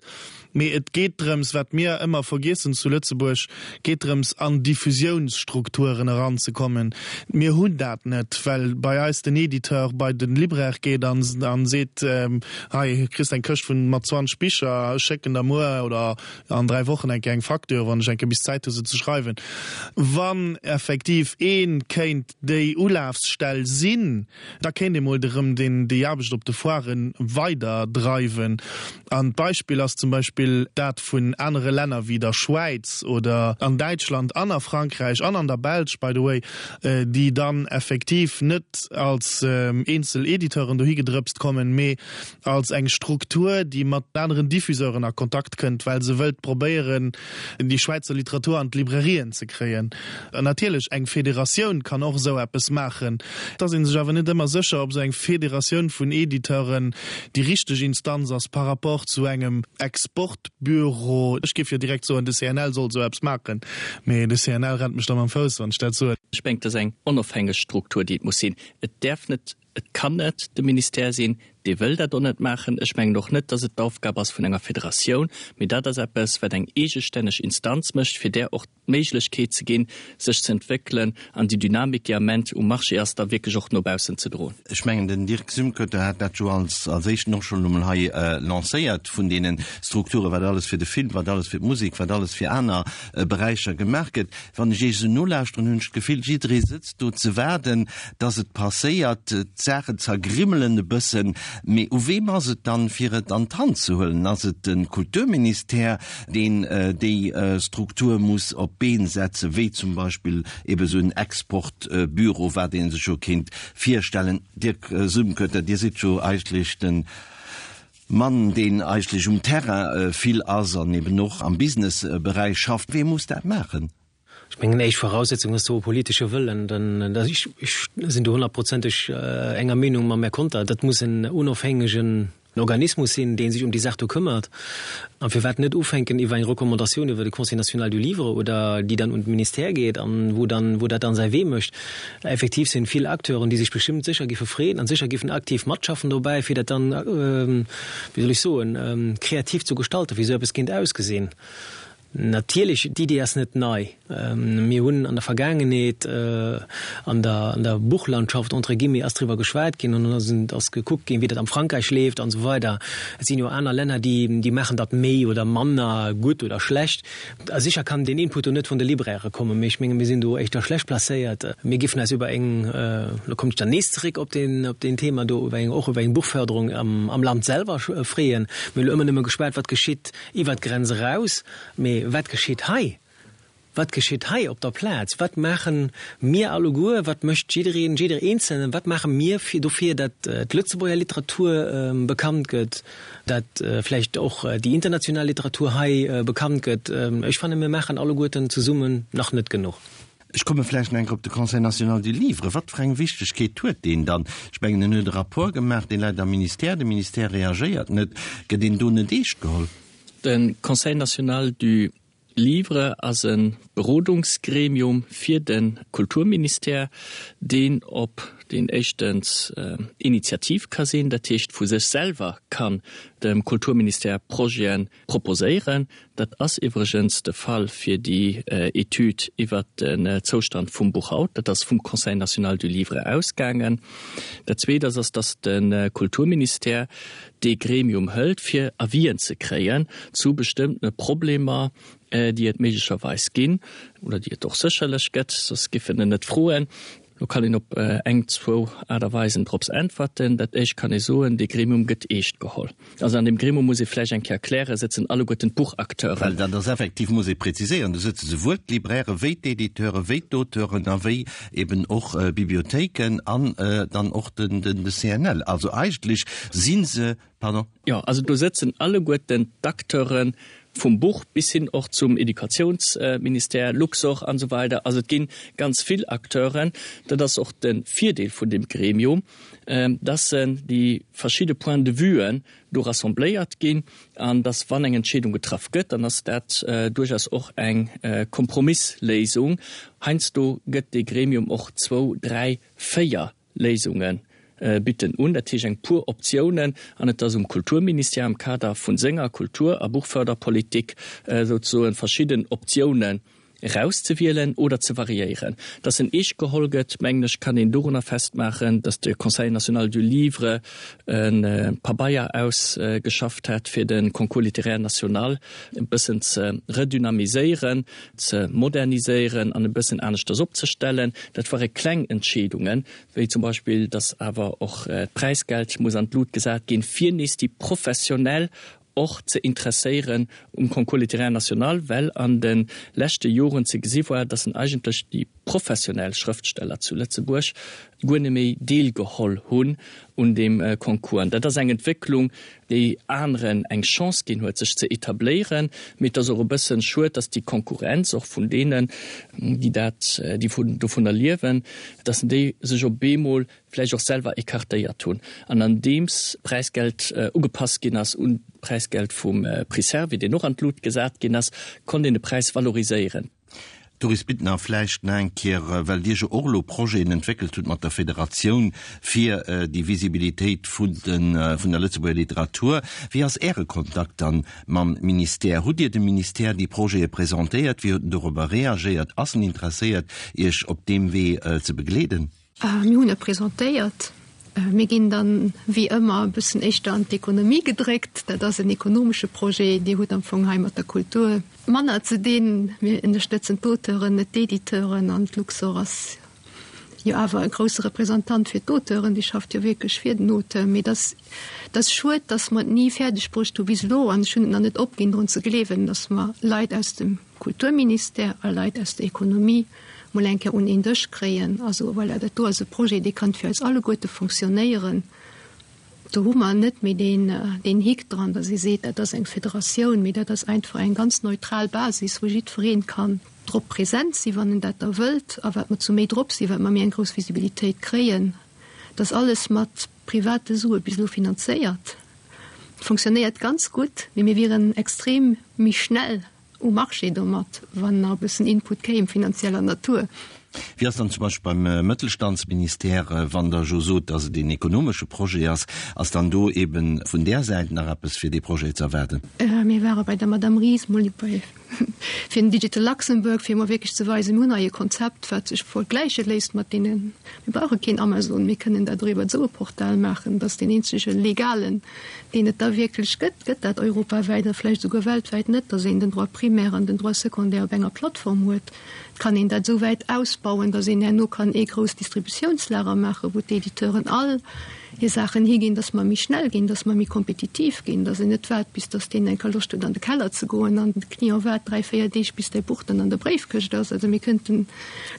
Mee et geet drëms, wat mir ëmmer vergiessen zu Lëtzebuerg, geet drëms an Diffusiounsstrukturen eranzekommen. Mir hunn dat net, well bei eis den Editeur bei de Libraire geet a seet, hei kriss eng Këscht vun mat 20 Bicher, ech schécken der muer oder an 3 Wochen eng Kéier eng Facture, wann ech eng Kéier bis Zäit hu se ze schreiwen. Wann effektiv ee kéint déi Ulafsstell sinn, Da kéint ee mol erëm déi Aarbecht op de Foirë weider dreiwen. An d'Beispill ass zum Beispill dat vun anere Länner wéi der Schwäiz oder an Däitschland an a Frankräich an an der Belsch, by the way, déi dann effektiv net als eenzel Editeuren dohi gedrëpst kommen, mee als eng Struktur, déi mat aneren Diffuseuren a Kontakt kënnt, well se wëllt probéieren, déi Schwäizer Literatur an d'Librairien ze kréien. An natierlech, eng Federatioun kann och esou eppes maachen. Et ass ee sech awer net ëmmer sécher, ob esou eng Federatioun vun Editeuren déi richteg Instanz ass par rapport zu engem Exportbüro. Ech géif jo direkt soen, de CNL soll esou eppes maachen, mee de CNL rennt mech da mam Fouss, wann ech dat soen. Ech mengen, et ass eng onofhängeg Struktur, déi et muss sinn. Et däerf net Et kann net de Ministère sinn, dee wëll dat och net maachen. Ech mengen och net, dass et d'Aufgab ass vun enger Federatioun, mee dat ass eppes, wat eng eegestänneg Instanz mécht, fir där och d'Méiglechkeet ze ginn, sech ze entwéckelen an déi Dynamik, déi am Ament um Marché ass, da wierklech och no baussen ze droen. Ech mengen, den Dirk Sümkötter hat dat jo als als éischten och schonn emol hei lancéiert, vun deene Strukturen, wat alles fir de Film, wat alles fir d'Musek, wat alles fir aner Beräicher gemaach gëtt. Wann ech Iech esou nolauschteren, hunn ech d'Gefill, jidderee sëtzt do ze waarden, dass et passéiert. D'Saachen zergrimmelen e bëssen. Mee u weem ass et dann, fir et an d'Hand ze huelen? Ass et de Kulturministère, deen déi Struktur muss op d'Been setzen, wéi zum Beispill ebe sou en Exportbüro, wat ee sech jo kéint virstellen? Dirk Sumkötter, Dir sidd jo eigentlech de Mann, deen eigentlech um Terrain vill ass an eben och am Businessberäich schafft. Wee muss dat maachen? Ech mengen, éischt Voraussetzung ass do e politesche Wëllen. Denn ech sinn do honnertprozenteg enger Meenung mam Här Conter, dat muss en onofhängegen Organismus sinn, dee sech ëm déi Saach do këmmert. A firwat net ufänken iwwer eng Recommandatioun iwwer de Conseil national du livre oder déi dann un de Ministère geet an wou dann, wou dat dann säi Wee mécht. Effektiv sinn vill Acteuren, déi sech bestëmmt sécher géife freeën an sécher géifen aktiv matschaffen dobäi, fir dat dann, wéi soll ech soen, kreativ zu gestalten, wéi esou eppes kéint ausgesinn. Natierlech, d'Idee ass net nei. Mir hunn an der Vergaangenheet an der an der Buchlandschaft, entre guillemets, ass driwwer geschwat ginn an dann ass gekuckt ginn, wéi dat am Frankräich leeft an esou weider. Et sinn jo aner Länner, déi déi maachen dat méi oder manner gutt oder schlecht. A sécher kann deen Input do net vun de Librairë kommen, mee ech menge mir sinn do éischter schlecht placéiert. Mir géifen eis iwwer eng, lo kommen ech dann nees zeréck op deen op deen Thema do, iwwer eng och iwwer eng Buchförderung am am Land selwer freeën. Mir hunn elo ëmmer nëmme geschwat, wat geschitt Iwwer d'Grenz eraus, mee wat geschitt hei? Wat geschitt hei op der Plaz? Wat maache mir alleguer, wat mécht jiddereen, jidder Eenzelnen, wat maache mir fir dofir, datt d'Lëtzebuerger Literatur bekannt gëtt, datt vläicht och déi international Literatur hei bekannt gëtt? Ech fanne mir maachen alleguerten zesummen nach net genuch. Ech komme vläicht nach eng Kéier op de Conseil national du livre. Wat fir eng Wichtegkeet huet deen dann? Ech mengen, en huet e Rapport gemaach, dee läit am Ministère, de Ministère reagéiert net. Gëtt een do net eescht geholl? De Conseil national du livre ass e Berodungsgremium fir de Kulturministère, deen op deen éischtens initiativ ka sinn, dat heescht vu sech selwer kann dem Kulturministère Projete proposéieren. Dat ass iwwregens de Fall fir déi Etüd iwwert den Zoustand vum Buch haut. Dat ass vum Conseil national du livre ausgaangen. Dat Zweet ass, ass dass de Kulturministère dee Gremium hëlt, fir Avisen ze kréien zu bestëmmtene Problemer, déi et méiglecherweis ginn oder déi et och sécherlech gëtt, soss giff en en net froen. Do kann een op eng, zwou Aart a Weisen drops äntwerten. Dat éischt kann ee soen, Dee Gremium gëtt eescht geholl. Also an deem Gremium, muss ee vläicht eng Kéier erklären, sëtzen alleguerten d'Buchacteuren. Well dat ass effektiv, muss ee präziséieren, do sëtze souwuel d'Libraire wéi d'Editeure wéi d'Auteuren a wéi eben och Bibliothéiken an dann och den CNL. Also eigentlech si se Pardon? Jo, also do sëtzen alleguerten d'Acteure vum Buch bis hin och zum Educatiounsministère, Luxorr an esou weider. Also et gi ganz vill Acteuren. Dat ass och de Virdeel vun deem Gremium, dass se déi verschidde Points de vuen do rassembléiert ginn an dass, wann eng Entscheedung getraff gëtt, dann ass dat duerchaus och eng Kompromissléisung. Heiansdo gëtt dee Gremium och zwou, dräi, véier Léisunge bidden un, dat heescht eng puer Optiounen, an et ass um Kulturministère am Kader vu senger Kultur a Buchförderpolitik souzesoen verschidden Optiounen erauszewielen oder ze variéieren. Dass en eescht geholl gëtt, mengen ech, kann een dorunner festmaachen, dass de Conseil national du livre e Pabeier ausgeschafft hat, fir de Concours littéraire national e bëssen ze redynamiséieren, ze moderniséieren an e bëssen aneschters opzestellen. Dat ware kleng Entscheedungen, wéi zum Beispill, datt awer och d'Präisgeld muss an d'Lut gesat ginn, fir nees déi Professionell och ze interesséieren um Concours littéraire national, well an de leschte Joren ze gesi war, datt en eigentlech déi professionell Schrëftsteller zu Lëtzebuerg guer net méi deelgeholl hunn un deem Concours. An dat ass eng Entwécklung, déi aneren eng Chance ginn huet, sech ze etabléieren. Mee et ass och e bëssen schued, datt déi Konkurrenz och vun deenen, déi dat, déi vun dovunner liewen, datt déi sech op eemol vläicht och selwer écartéiert hunn. An andeems d'Präisgeld ugepasst ginn ass un d'Präisgeld vum Prix Servi, deen och an d'Lut gesat ginn ass, konnt een de Präis valoriséieren. Doris Bittner, Vläicht nach eng Kéier, well Dir jo och elo Projeten entwéckelt hutt mat der Federatioun fir déi Visibilitéit vun der Lëtzebuerger Literatur. Wéi ass Äre Kontakt dann mam Ministère? Hutt Dir dem Ministère déi Projete presentéiert? Wéi huet en dorobber reagéiert? Ass en interesséiert, Iech op deem Wee ze begleeden? Mir hunn e presentéiert. Mir ginn dann, wéi ëmmer, e bëssen éischter an d'Ekonomie gedréckt. Dat ass en ekonomesche Projet. Dir hutt am Fong hei mat der Kultur manner ze dinn. Mir ënnerstëtzen d'Auteuren, net d'Editeuren. An d'Luxor ass jo awer e grousse Representant fir d'Auteuren. Déi schafft jo wierklech fir den Auteur. Mee et ass, et ass schued, dass mer et ni fäerdeg bruecht hu bis elo, an ech hunn et nach net opginn, drun ze gleewen, dass mer Leit aus dem Kulturministère a Leit aus der Ekonomie mol eng Kéier un een Dësch kréien. Also voilà, dat do ass e Projet, dee kann fir eis alleguerte fonctionnéieren. Do hu mer net méi deen, deen Hick dran, datt ee seet, dat ass eng Federatioun, mee dat ass einfach eng ganz neutral Basis, wou jiddweree kann drop present sinn, wann en dat da wëllt. A wat mer zu méi drop sinn, wat mer méi eng grouss Visibilitéit kréien. Dat ass alles mat private Sue bis elo finanzéiert. Fonctionnéiert ganz gutt, mee mir wieren extrem méi schnell um Marché domat, wann nach e bëssen Input kéim finanzieller Natur. Wéi ass dann zum Beispill beim Mëttelstandsministère, wann Der jo sot, datt et een ekonomesche Projet ass, ass dann do eeben vun där Säit nach eppes fir dee Projet ze erwaarden? Mir ware bei der Madame Ries mol bei fir den Digital Luxembourg, fir emol wierklech ze weisen, mir hunn hei e Konzept, wat sech vergläiche léisst mat deenen, mir brauche keen Amazon, mir kënnen dat och iwwer esou e Portal maachen, dat ass deen eenzege legalen, deen et da wierklech gëtt, gëtt dat europawäit a vläicht esouguer weltwäit net, datt een den Droit primaire an den Droit secondaire op enger Plattform huet. Et kann een dat esou wäit ausbauen, datt een herno kann ee grousst Distributiounslager maachen, wou d'Editeuren all hir Saachen higinn, datt mer méi schnell ginn, datt mer méi kompetitiv ginn, datt een net waart, bis datt deen eng Kéier Loscht huet an de Keller ze goen an de Client waart dräi, véier Deeg, bis däi Buch dann an der Bréifkëscht ass. Also mir kënnten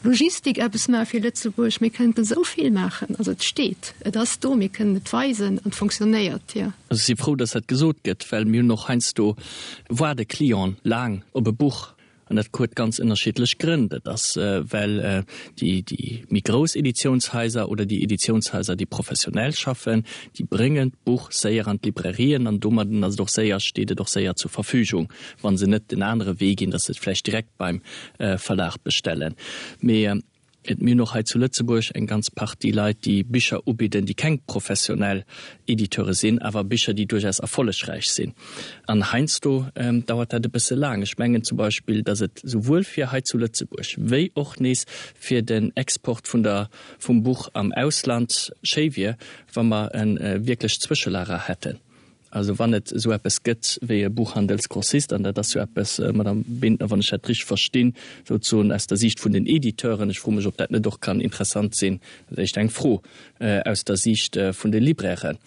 Logistik eppes maache fir Lëtzebuerg, mir kënnten esou vill maachen. Also et steet, et ass do, mir kënnen et weisen an et fonctionnéiert, jo. Also ech si frou, dass dat gesot gëtt, well mir hunn och heiansdo waarde Clienten laang op e Buch an dat huet ganz ënnerschiddlech Grënn. Dat ass, well déi, déi méi grouss Editiounshaiser oder déi Editiounshaiser, déi professionell schaffen, déi bréngen d'Buch séier an d'Librairien an domadden ass et och séier, steet et och séier zur Verfügung, wa se net den anere Wee ginn, dass se et vläicht direkt beim Verlag bestellen. Mee et mir hunn och hei zu Lëtzebuerg eng ganz Partie Leit, déi Bicher ubidden, déi keng professionell Editeure sinn, awer Bicher, déi duerchaus erfollegräich sinn. An heiansdo dauert dat e bësse laang. Ech mengen zum Beispill, datt et souwuel fir hei zu Lëtzebuerg wéi och nees fir den Export vun der, vum Buch am Ausland schéi wier, wa mer e wierklecht Zwëschelager hätten. Also wann et esou eppes gëtt wéi e Buchhandelsgrossist, an dat ass jo eppes, Madame Bintner, wann ech dat richteg verstinn, souzesoen aus der Siicht vun den Editeuren, ech froe mech, ob dat net och kann interessant sinn, dat ass éischter eng Fro, aus der Siicht vun de Librairen,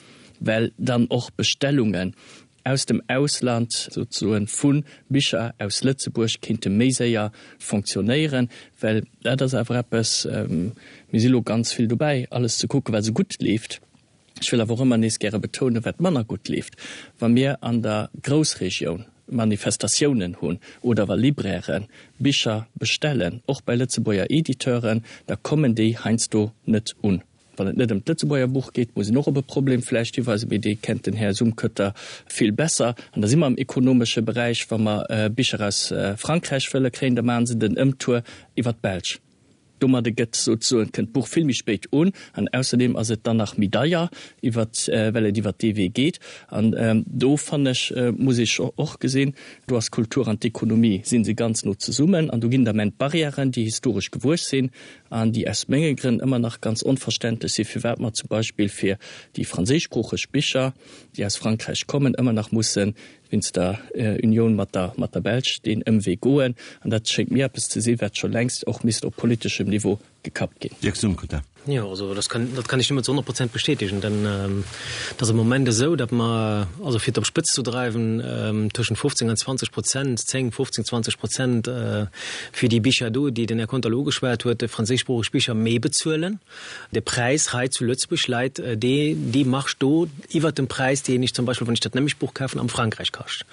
well dann och Bestellungen aus dem Ausland souzesoen vu Bicher aus Lëtzebuerg kéinte méi séier fonctionnéieren, well dat ass awer eppes, mir si lo ganz vill dobäi alles ze kucken, wat esou gutt leeft. Ech wëll awer och ëmmer nees gäre betounen, wat manner gutt leeft, wa mir an der Groussregioun Manifestatiounen hunn oder wa Libraire Bicher bestellen, och bei Lëtzebuerger Editeuren, da kommen déi heiansdo net un. Wann et net ëm d'Lëtzebuerger Buch geet, muss een och op e Problem vläicht hiweisen, mee dee kennt den Här Sumkötter vill besser. An da si mer am ekonomesche Beräich, wa mer Bicher aus Frankräich wëlle kréien, da maache se den Ëmtour iwwer d'Belsch. Domadde gëtt souzesoen, kënnt d'Buch vill méi spéit un an ausserdeem ass et dann nach méi deier, iwwert, well et iwwert dee Wee geet. An do, fannen ech, muss ee scho och gesinn, do ass d'Kultur an d'Ekonomie si se ganz no zesummen an do ginn et am Enn Barrièren, déi historesch gewuess sinn an déi aus menge Grënn ëmmer nach ganz onverständlech sinn, firwat mer zum Beispill fir déi franséischsproocheg Bicher, déi aus Frankräich kommen, ëmmer nach mussen wéinst der Unioun mat der mat der Belsch deen Ëmwee goen. An dat schéngt mir eppes ze sinn, wat scho längst och misst op politeschem Niveau gekappt ginn. Dirk Sumkötter. Jo, also dat kann, dat kann ech nëmmen zu 100 Prozent bestätegen, denn et ass am Moment esou, datt mer, also fir et op d'Spëtz zu dreiwen, tëschent 15 an 20 Prozent, 10, 15, 20 Prozent fir déi Bicher do, déi den Här Conter elo ugeschwat huet, déi franséischsproocheg Bicher, méi bezuelen. De Präis hei zu Lëtzebuerg läit dee, déi Marge do iwwert dem Präis, deen ech zum Beispill, wann ech dat nämlecht Buch kafen, am Frankräich kascht.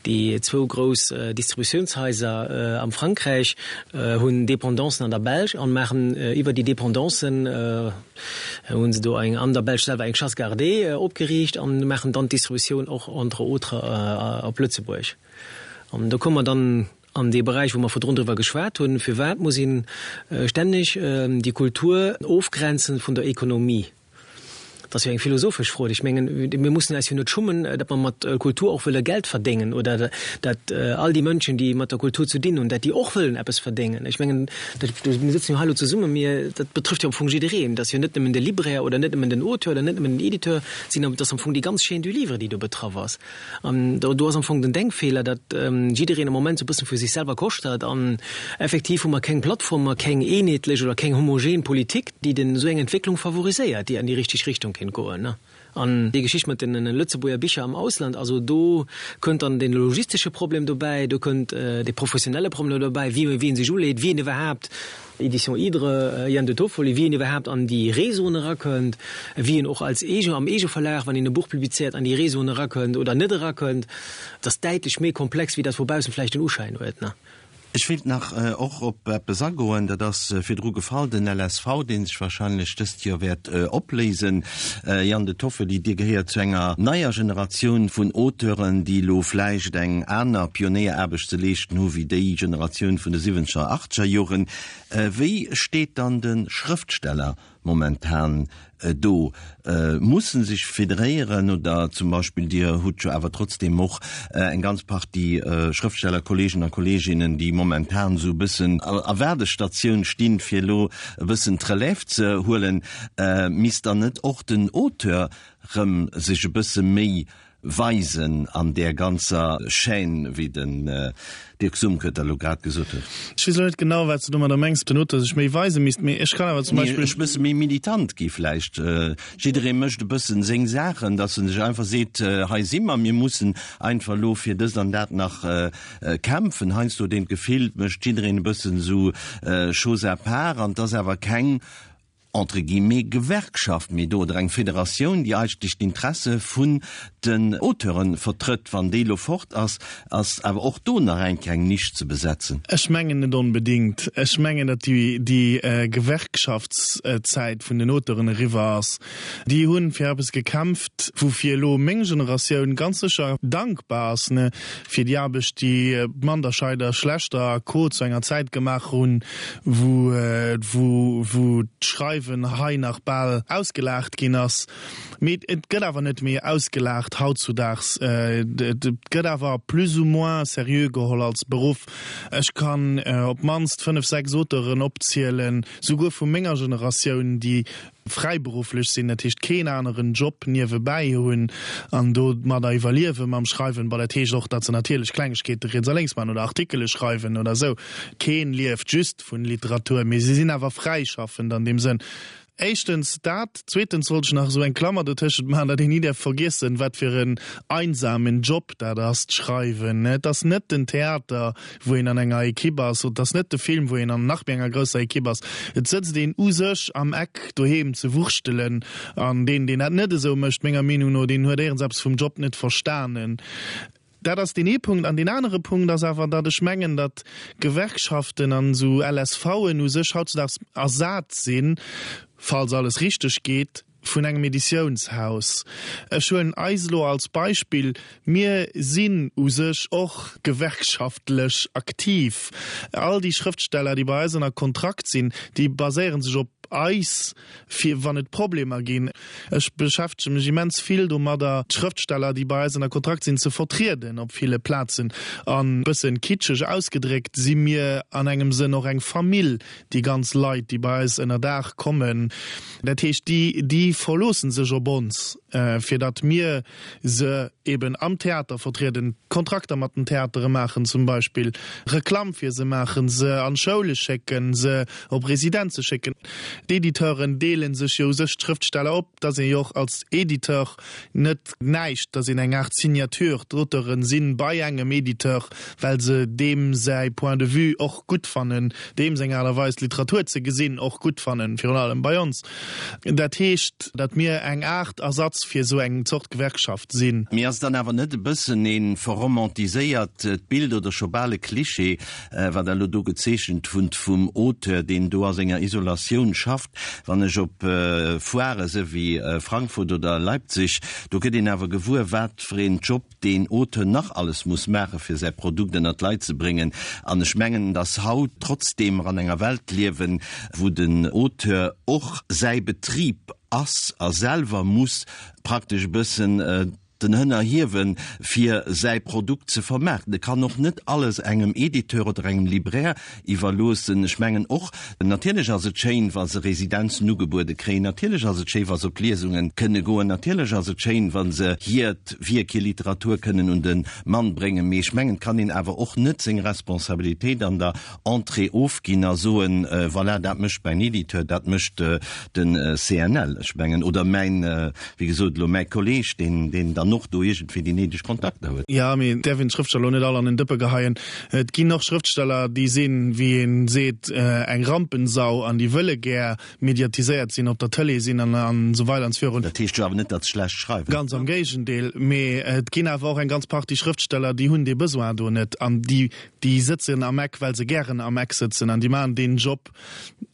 Déi zwou grouss Distributiounshaiser am Frankräich hunn Dependancen an der Belsch an maachen iwwer déi Dependancen, hu se do eng an der Belsch selwer eng Chasse gardée opgeriicht an maachen dann d'Distributioun och entre autres op Lëtzebuerg. An do komme mer dann An dee Beräich, wou mer virdrun driwwer geschwat hunn, firwat muss ee stänneg déi Kultur ofgrenzen vun der Ekonomie? Dat ass jo eng philosophesch Fro. Ech mengen, mir mussen eis jo net schummen, datt mer mat Kultur och wëlle Geld verdéngen oder datt all déi Mënschen, déi mat der Kultur ze dinn hunn, datt déi och wëllen eppes verdéngen. Ech mengen, dat, mir sëtzen jo hei elo zesummen, mir, dat betrëfft jo am Fong jiddereen. Dat ass jo net nëmmen de Libraire oder net nëmmen den Auteur oder net nëmmen den Editeur, et ass am Fong déi ganz Chaîne du livre, déi do betraff ass. An do, do ass am Fong den Denkfeeler, datt jiddereen am Moment sou e bëssen fir sech selwer koschtert. An effektiv hu mer keng Plattform, mer keng eenheetlech oder keng homogen Politik, déi den esou eng Entwécklung favoriséiert, déi an déi richteg Richtung kéint goen. An déi Geschicht mat den Lëtzebuerger Bicher am Ausland, also do kënnt dann den logistesche Problem dobäi, do kënnt de professionelle Problem dobäi, wéi wien sech uleet, wien iwwerhaapt Edition Hydre, Ian De Toffoli, wéi een iwwerhaapt an déi Réseauen erakënnt, wéi een och als Eege, am Eegeverlag, wann een e Buch publizéiert, an déi Réseauen erakënnt oder net erakënnt. Dat ass däitlech méi komplex, wéi dat vu baussen vläicht den Uschäin huet. Ech wéilt nach och op eppes agoen, dat ass virdru gefall, den LSV, dee sech wahrscheinlech dëst Joer wäert opléisen. Ian De Toffoli, Dir gehéiert zu enger neier Generatioun vun Auteuren, déi elo vläicht eng aner Pionéieraarbecht ze leeschten hu wéi déi Generatioun vun de siwwenzeger, achtzeger Joren. Wéi steet dann de Schrëftsteller momentan do? Muss en sech federéieren oder zum Beispill, Dir hutt jo awer trotzdeem och eng ganz Partie Schrëftstellerkolleegen a Kolleeginnen, déi momentan esou e bëssen a Waardestatioun stinn, fir elo e bëssen d'Relève ze huelen. Misst dann net och den Auteur rëm sech e bësse méi weisen an där ganzer Chaîne, wéi den Dirk Sumkötter elo grad gesot huet? Ech weess elo net genau, wat s de domadder mengs, den Auteur sech méi weise misst, mee ech kann awer zum Beispill. Ech bësse méi militant gi vläicht. Jidderee mécht e bëssen seng Saachen, datt en sech einfach seet, hei si mer, mir mussen einfach elo fir dëst an dat nach kämpfen. Heiansdo huet een d'Gefill, et mécht jiddereen e bëssen esou chose à part an et ass awer keng entre guillemets, Gewerkschaft méi do oder eng Federatioun, déi eigentlech d'Interesse vun den Auteure vertrëtt. Wann déi elo fort ass, ass awer och do nach eng kleng Nisch ze besetzen. Ech mengen net onbedéngt. Ech mengen, datt déi, déi Gewerkschaftszäit vun den Auteuren eriwwer ass. Déi hu fir eppes gekämpft, woufir elo meng Generatioun ganz sécher dankbar ass, ne, fir déi Aarbecht, déi Manderscheider, Schlechter a Co. Zu enger Zäit gemaach hunn, wou, wou, wou d'Schreiwen hei nach bal ausgelaacht ginn ass. Mee et gëtt awer net méi ausgelaacht hautzudaags. Et gëtt awer plus ou moins seriö geholl als Beruff. Ech kann op d'mannst fënnef, sechs Auteuren opzielen, souguer vu menger Generatioun, déi fräiberufflech sinn, dat heescht keen aneren Job niewebäi hunn an domadder iwwerliewe mam Schreiwen. Bon, dat heescht och, datt se natierlech Klengegkeete riets a lénks maachen oder Artikele schreiwen oder esou. Keen lieft just vun Literatur, mee si sinn awer fräischaffend an deem Sënn. Éischtens dat. Zweetens wollt ech nach esou eng Klammer dotëschent maachen, datt een ni däerf vergiessen, wat fir en einsamen Job dat ass, d'Schreiwen. Et ass net den Theater, wou een an enger Equipe ass, et ass net de Film, wou een an nach méi enger grousser Equipe ass. Et sëtzt een u sech am Eck doheem ze wurschtelen. An deen, deen dat net esou mécht, menger Meenung no, deen huet éierens eppes vum Job net verstanen. Dat ass deen ee Punkt. An deen anere Punkt ass awer, datt ech mengen, datt Gewerkschaften an esou LSVen u sech hautzudaags ersat sinn, falls alles richteg geet, vun engem Editiounshaus. Ech huelen eis elo als Beispill. Mir sinn u sech och gewerkschaftlech aktiv. All déi Schrëftsteller, déi bei eis ënner Kontrakt sinn, déi baséiere sech op eis, fir wann et Problemer ginn. Ech beschäftege mech immens vill domadder, d'Schrëftsteller, déi bei eis ënner Kontrakt sinn, ze vertrieden op ville Plazen. An e bëssen kitscheg ausgedréckt si mir an engem Sënn och eng Famill, déi ganz Leit, déi bei eis ënner Daach kommen. Dat heescht, déi, déi verloosse sech op ons, fir datt mir se eben am Theater vertrieden, Kontrakter mat den Theatere maachen zum Beispill, Reklamm fir se maachen, se an d'Schoule schécken, se op Residenze schécken. D'Editeuren deele sech jo u sech d'Schrëftsteller op. Et ass ee jo och als Editeur net näischt, et ass een eng Aart Signature. D'Auteuren si bei engem Editeur, well se deem säi Point de vue och gutt fannen, deem seng Aart a Weis d'Literatur ze gesinn och gutt fannen, virun allem bei ons. Dat heescht, datt mir eng Aart Ersatz fir esou eng Zort Gewerkschaft sinn. Mee ass et dann awer net e bëssen ee verromantiséiert Bild oder scho bal e Klischee, wat Der elo do gezeechent hutt vum Auteur, deen do a senger Isolatioun schafft? Wann ech op Foirë se wéi Frankfurt oder Leipzig, do gëtt een awer gewuer, wat fir een Job deen Auteur nach alles muss maachen, fir säi Produkt ënnert d'Leit ze bréngen. An ech mengen, dass haut, trotzdeem mer an enger Welt liewen, wou den Auteur och säi Betrib ass a selwer muss praktesch e bëssen den Hënner hiewen, fir säi Produkt ze vermaarten. E kann och net alles engem Editeur oder engem Libraire iwwerloossen. Ech mengen och, natierlech ass et schéin, wa se Residenzen ugebuede kréien, natierlech ass et schéi, wa se op Liesunge kënne goen, natierlech ass et schéin, wa se hiert Wierk, hir Literatur kënnen un de Mann bréngen, mee ech mengen, et kann een awer och net seng Responsabilitéit an der Entrée ofginn a soen, voilà, dat mécht mäin Editeur, dat mécht de CNL, ech mengen, oder mäin, wéi gesot, elo mäi Kolleeg, deen, deen dann och do iergendwéi déi néideg Kontakter huet. Jo, mee et däerf een d'Schrëftsteller elo net all an en Dëppe geheien. Et ginn och Schrëftsteller, déi sinn, wéi ee seet, eng Rampensau an déi wëlle gär mediatiséiert sinn, op der Tëlee sinn an esou weider an esou virun. Dat heescht jo awer net, datt se schlecht schreiwen. Ganz am Géigendeel. Mee et ginn awer och eng ganz Partie Schrëftsteller, déi hunn dee Besoin do net an déi, déi sëtzen am Eck, well se gären am Eck sëtzen an déi maachen deen Job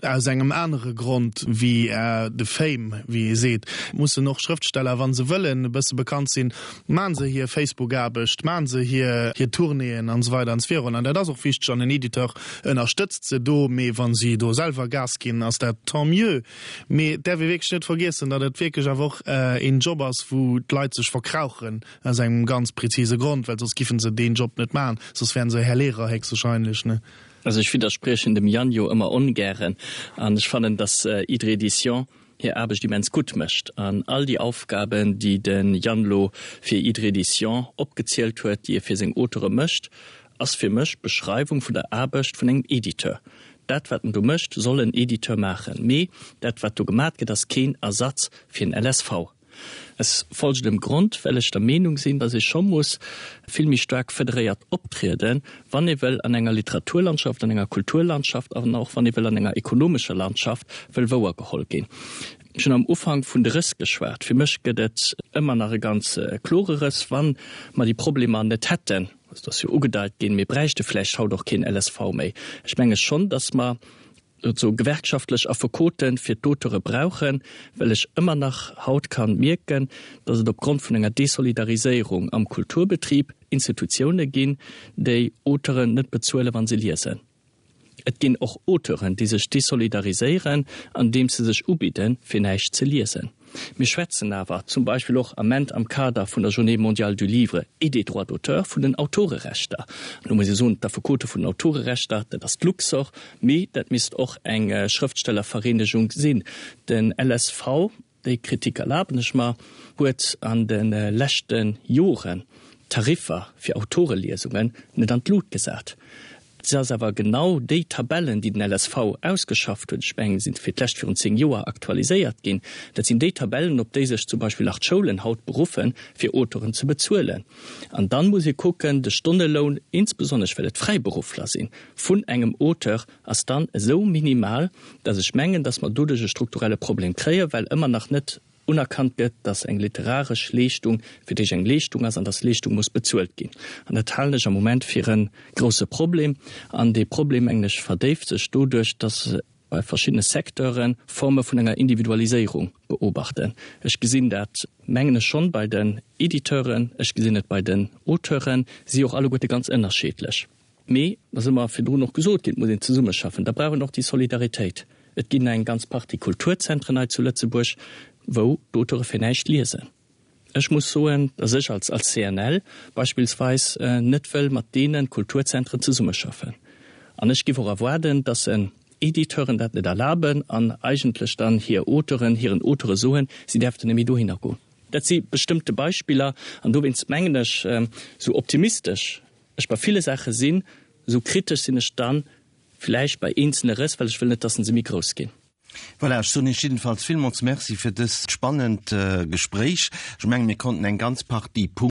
aus engem anere Grond wéi de Fame, wéi ee seet. Mussen och Schrëftsteller, wa se wëllen e bësse bekannt sinn, maachen se hir Facebook-Aarbecht, maachen se hir Tournéeën an esou weider an esou virun. An dat ass och wichteg an en Editeur ënnerstëtzt se do, mee wa si do selwer Gas ginn, ass dat tant mieux. Mee et däerf ee wierklech net vergiessen, datt et wierklech awer och een Job ass, wou d'Leit sech verkrauchen aus engem ganz prezise Grond, well soss giffen se deen Job net maachen, soss wären se Här Lehrer héchstwahrscheinlech, ne? Also ech widderspriechen dem Yann jo ëmmer ongären an ech fannen, dass Hydre Edition hir Aarbecht immens gutt mécht an all déi Aufgaben, déi de Yann lo fir Hydre Edition opgezielt huet, déi e fir seng Auteure mécht, ass fir mech d'Beschreiwung vun der Aarbecht vun engem Editeur. Dat wat en do mécht, soll en Editeur maachen, mee dat wat do gemat gëtt, ass keen Ersatz fir en LSV. Aus folgendem Grond, well ech der Meenung sinn, dass ee scho muss vill méi staark federéiert optrieden, wann ee wëll an enger Literaturlandschaft, an enger Kulturlandschaft an och wann ee wëll an enger ekonomescher Landschaft wëll wouergeholl ginn. Ech hunn am Ufank vun de Rëss geschwat. Fir mech gëtt et ëmmer nach e ganz klore Rëss. Wa mer déi Problemer net hätten, et ass jo ugedeit ginn, mir bräichte vläicht haut och keen LSV méi. Ech menge schonn, dass mer sou gewerkschaftlech Affekote fir d'Auteure brauchen, well ech ëmmer nach haut kann mierken, datt et opgrond vun enger Desolidariséierung am Kulturbetrib Institutioune ginn, déi Auteuren net bezuelen, wa se liesen. Et ginn och Auteuren, déi sech desolidariséieren, andeems se sech ubidden, fir näischt ze liesen. Mir schwätzen awer zum Beispill och Ament am Kader vun der Journée mondiale du livre et des droits d'auteur vun den Autorerechter. An do muss ee soen, d'Affekote vun den Autorerechter, dat ass d'Luxorr, mee dat misst och eng Schrëftstellervereenegung sinn. Den LSV, déi Kritik erlaben ech mer, huet an de leschte Joren d'Tariffer fir Autoreliesungen net an d'Lut gesat. Se ass awer genau déi Tabellen, déi den LSV ausgeschafft huet, ech mengen, se sinn fir d'lescht virun 10 Joer aktualiséiert ginn, dat sinn déi Tabellen, op déi sech zum Beispill nach d'Schoulen haut beruffen, fir Auteuren ze bezuelen. An dann muss ee kucken, de Stonneloun, insbesonnesch well et Fräiberuffler sinn, vun engem Auteur ass dann esou minimal, dass ech mengen, dass mer doduerch e strukturelle Problem kréien, well ëmmer nach net unerkannt gëtt, dass eng literaresch Leeschtung fir d'éischt eng Leeschtung ass an dass Leeschtung muss bezuelt ginn. An dat halen ech am Moment fir e grouse Problem. An dee Problem, mengen ech, verdéift sech doduerch, dass bei verschiddene Secteure Forme vun enger Individualiséierung beobachten. Ech gesinn dat, mengen ech, schonn bei den Editeuren, ech gesinn et bei den Auteuren, si och alleguerte ganz ënnerscheedlech. Mee, et ass ëmmer virdrun och gesot ginn, et muss een zesummeschaffen, da brauch een och déi Solidaritéit. Et ginn eng ganz Partie Kulturzentren hei zu Lëtzebuerg, wou d'Auteure fir näischt liesen. Ech muss soen, datt ech als als CNL beispillsweis net wëll mat deene Kulturzentren zesummeschaffen. An ech giff och erwaarden, datt en Editeuren dat net erlaben an eigentlech dann hir Auteuren, hiren Auteure soen, si däerften net méi dohinner goen. Dat si bestëmmte Beispiller an dowéinst mengen ech, esou optimistesch ech bei ville Saache sinn, esou kritesch sinn ech dann vläicht bei eenzele Rëss, well ech wëll net, dass se méi grouss ginn. Voilà, ech soen Iech jiddefalls villmools Merci fir dëst spannend Gespréich. Ech mengen, mir konnten eng ganz Partie Punkten.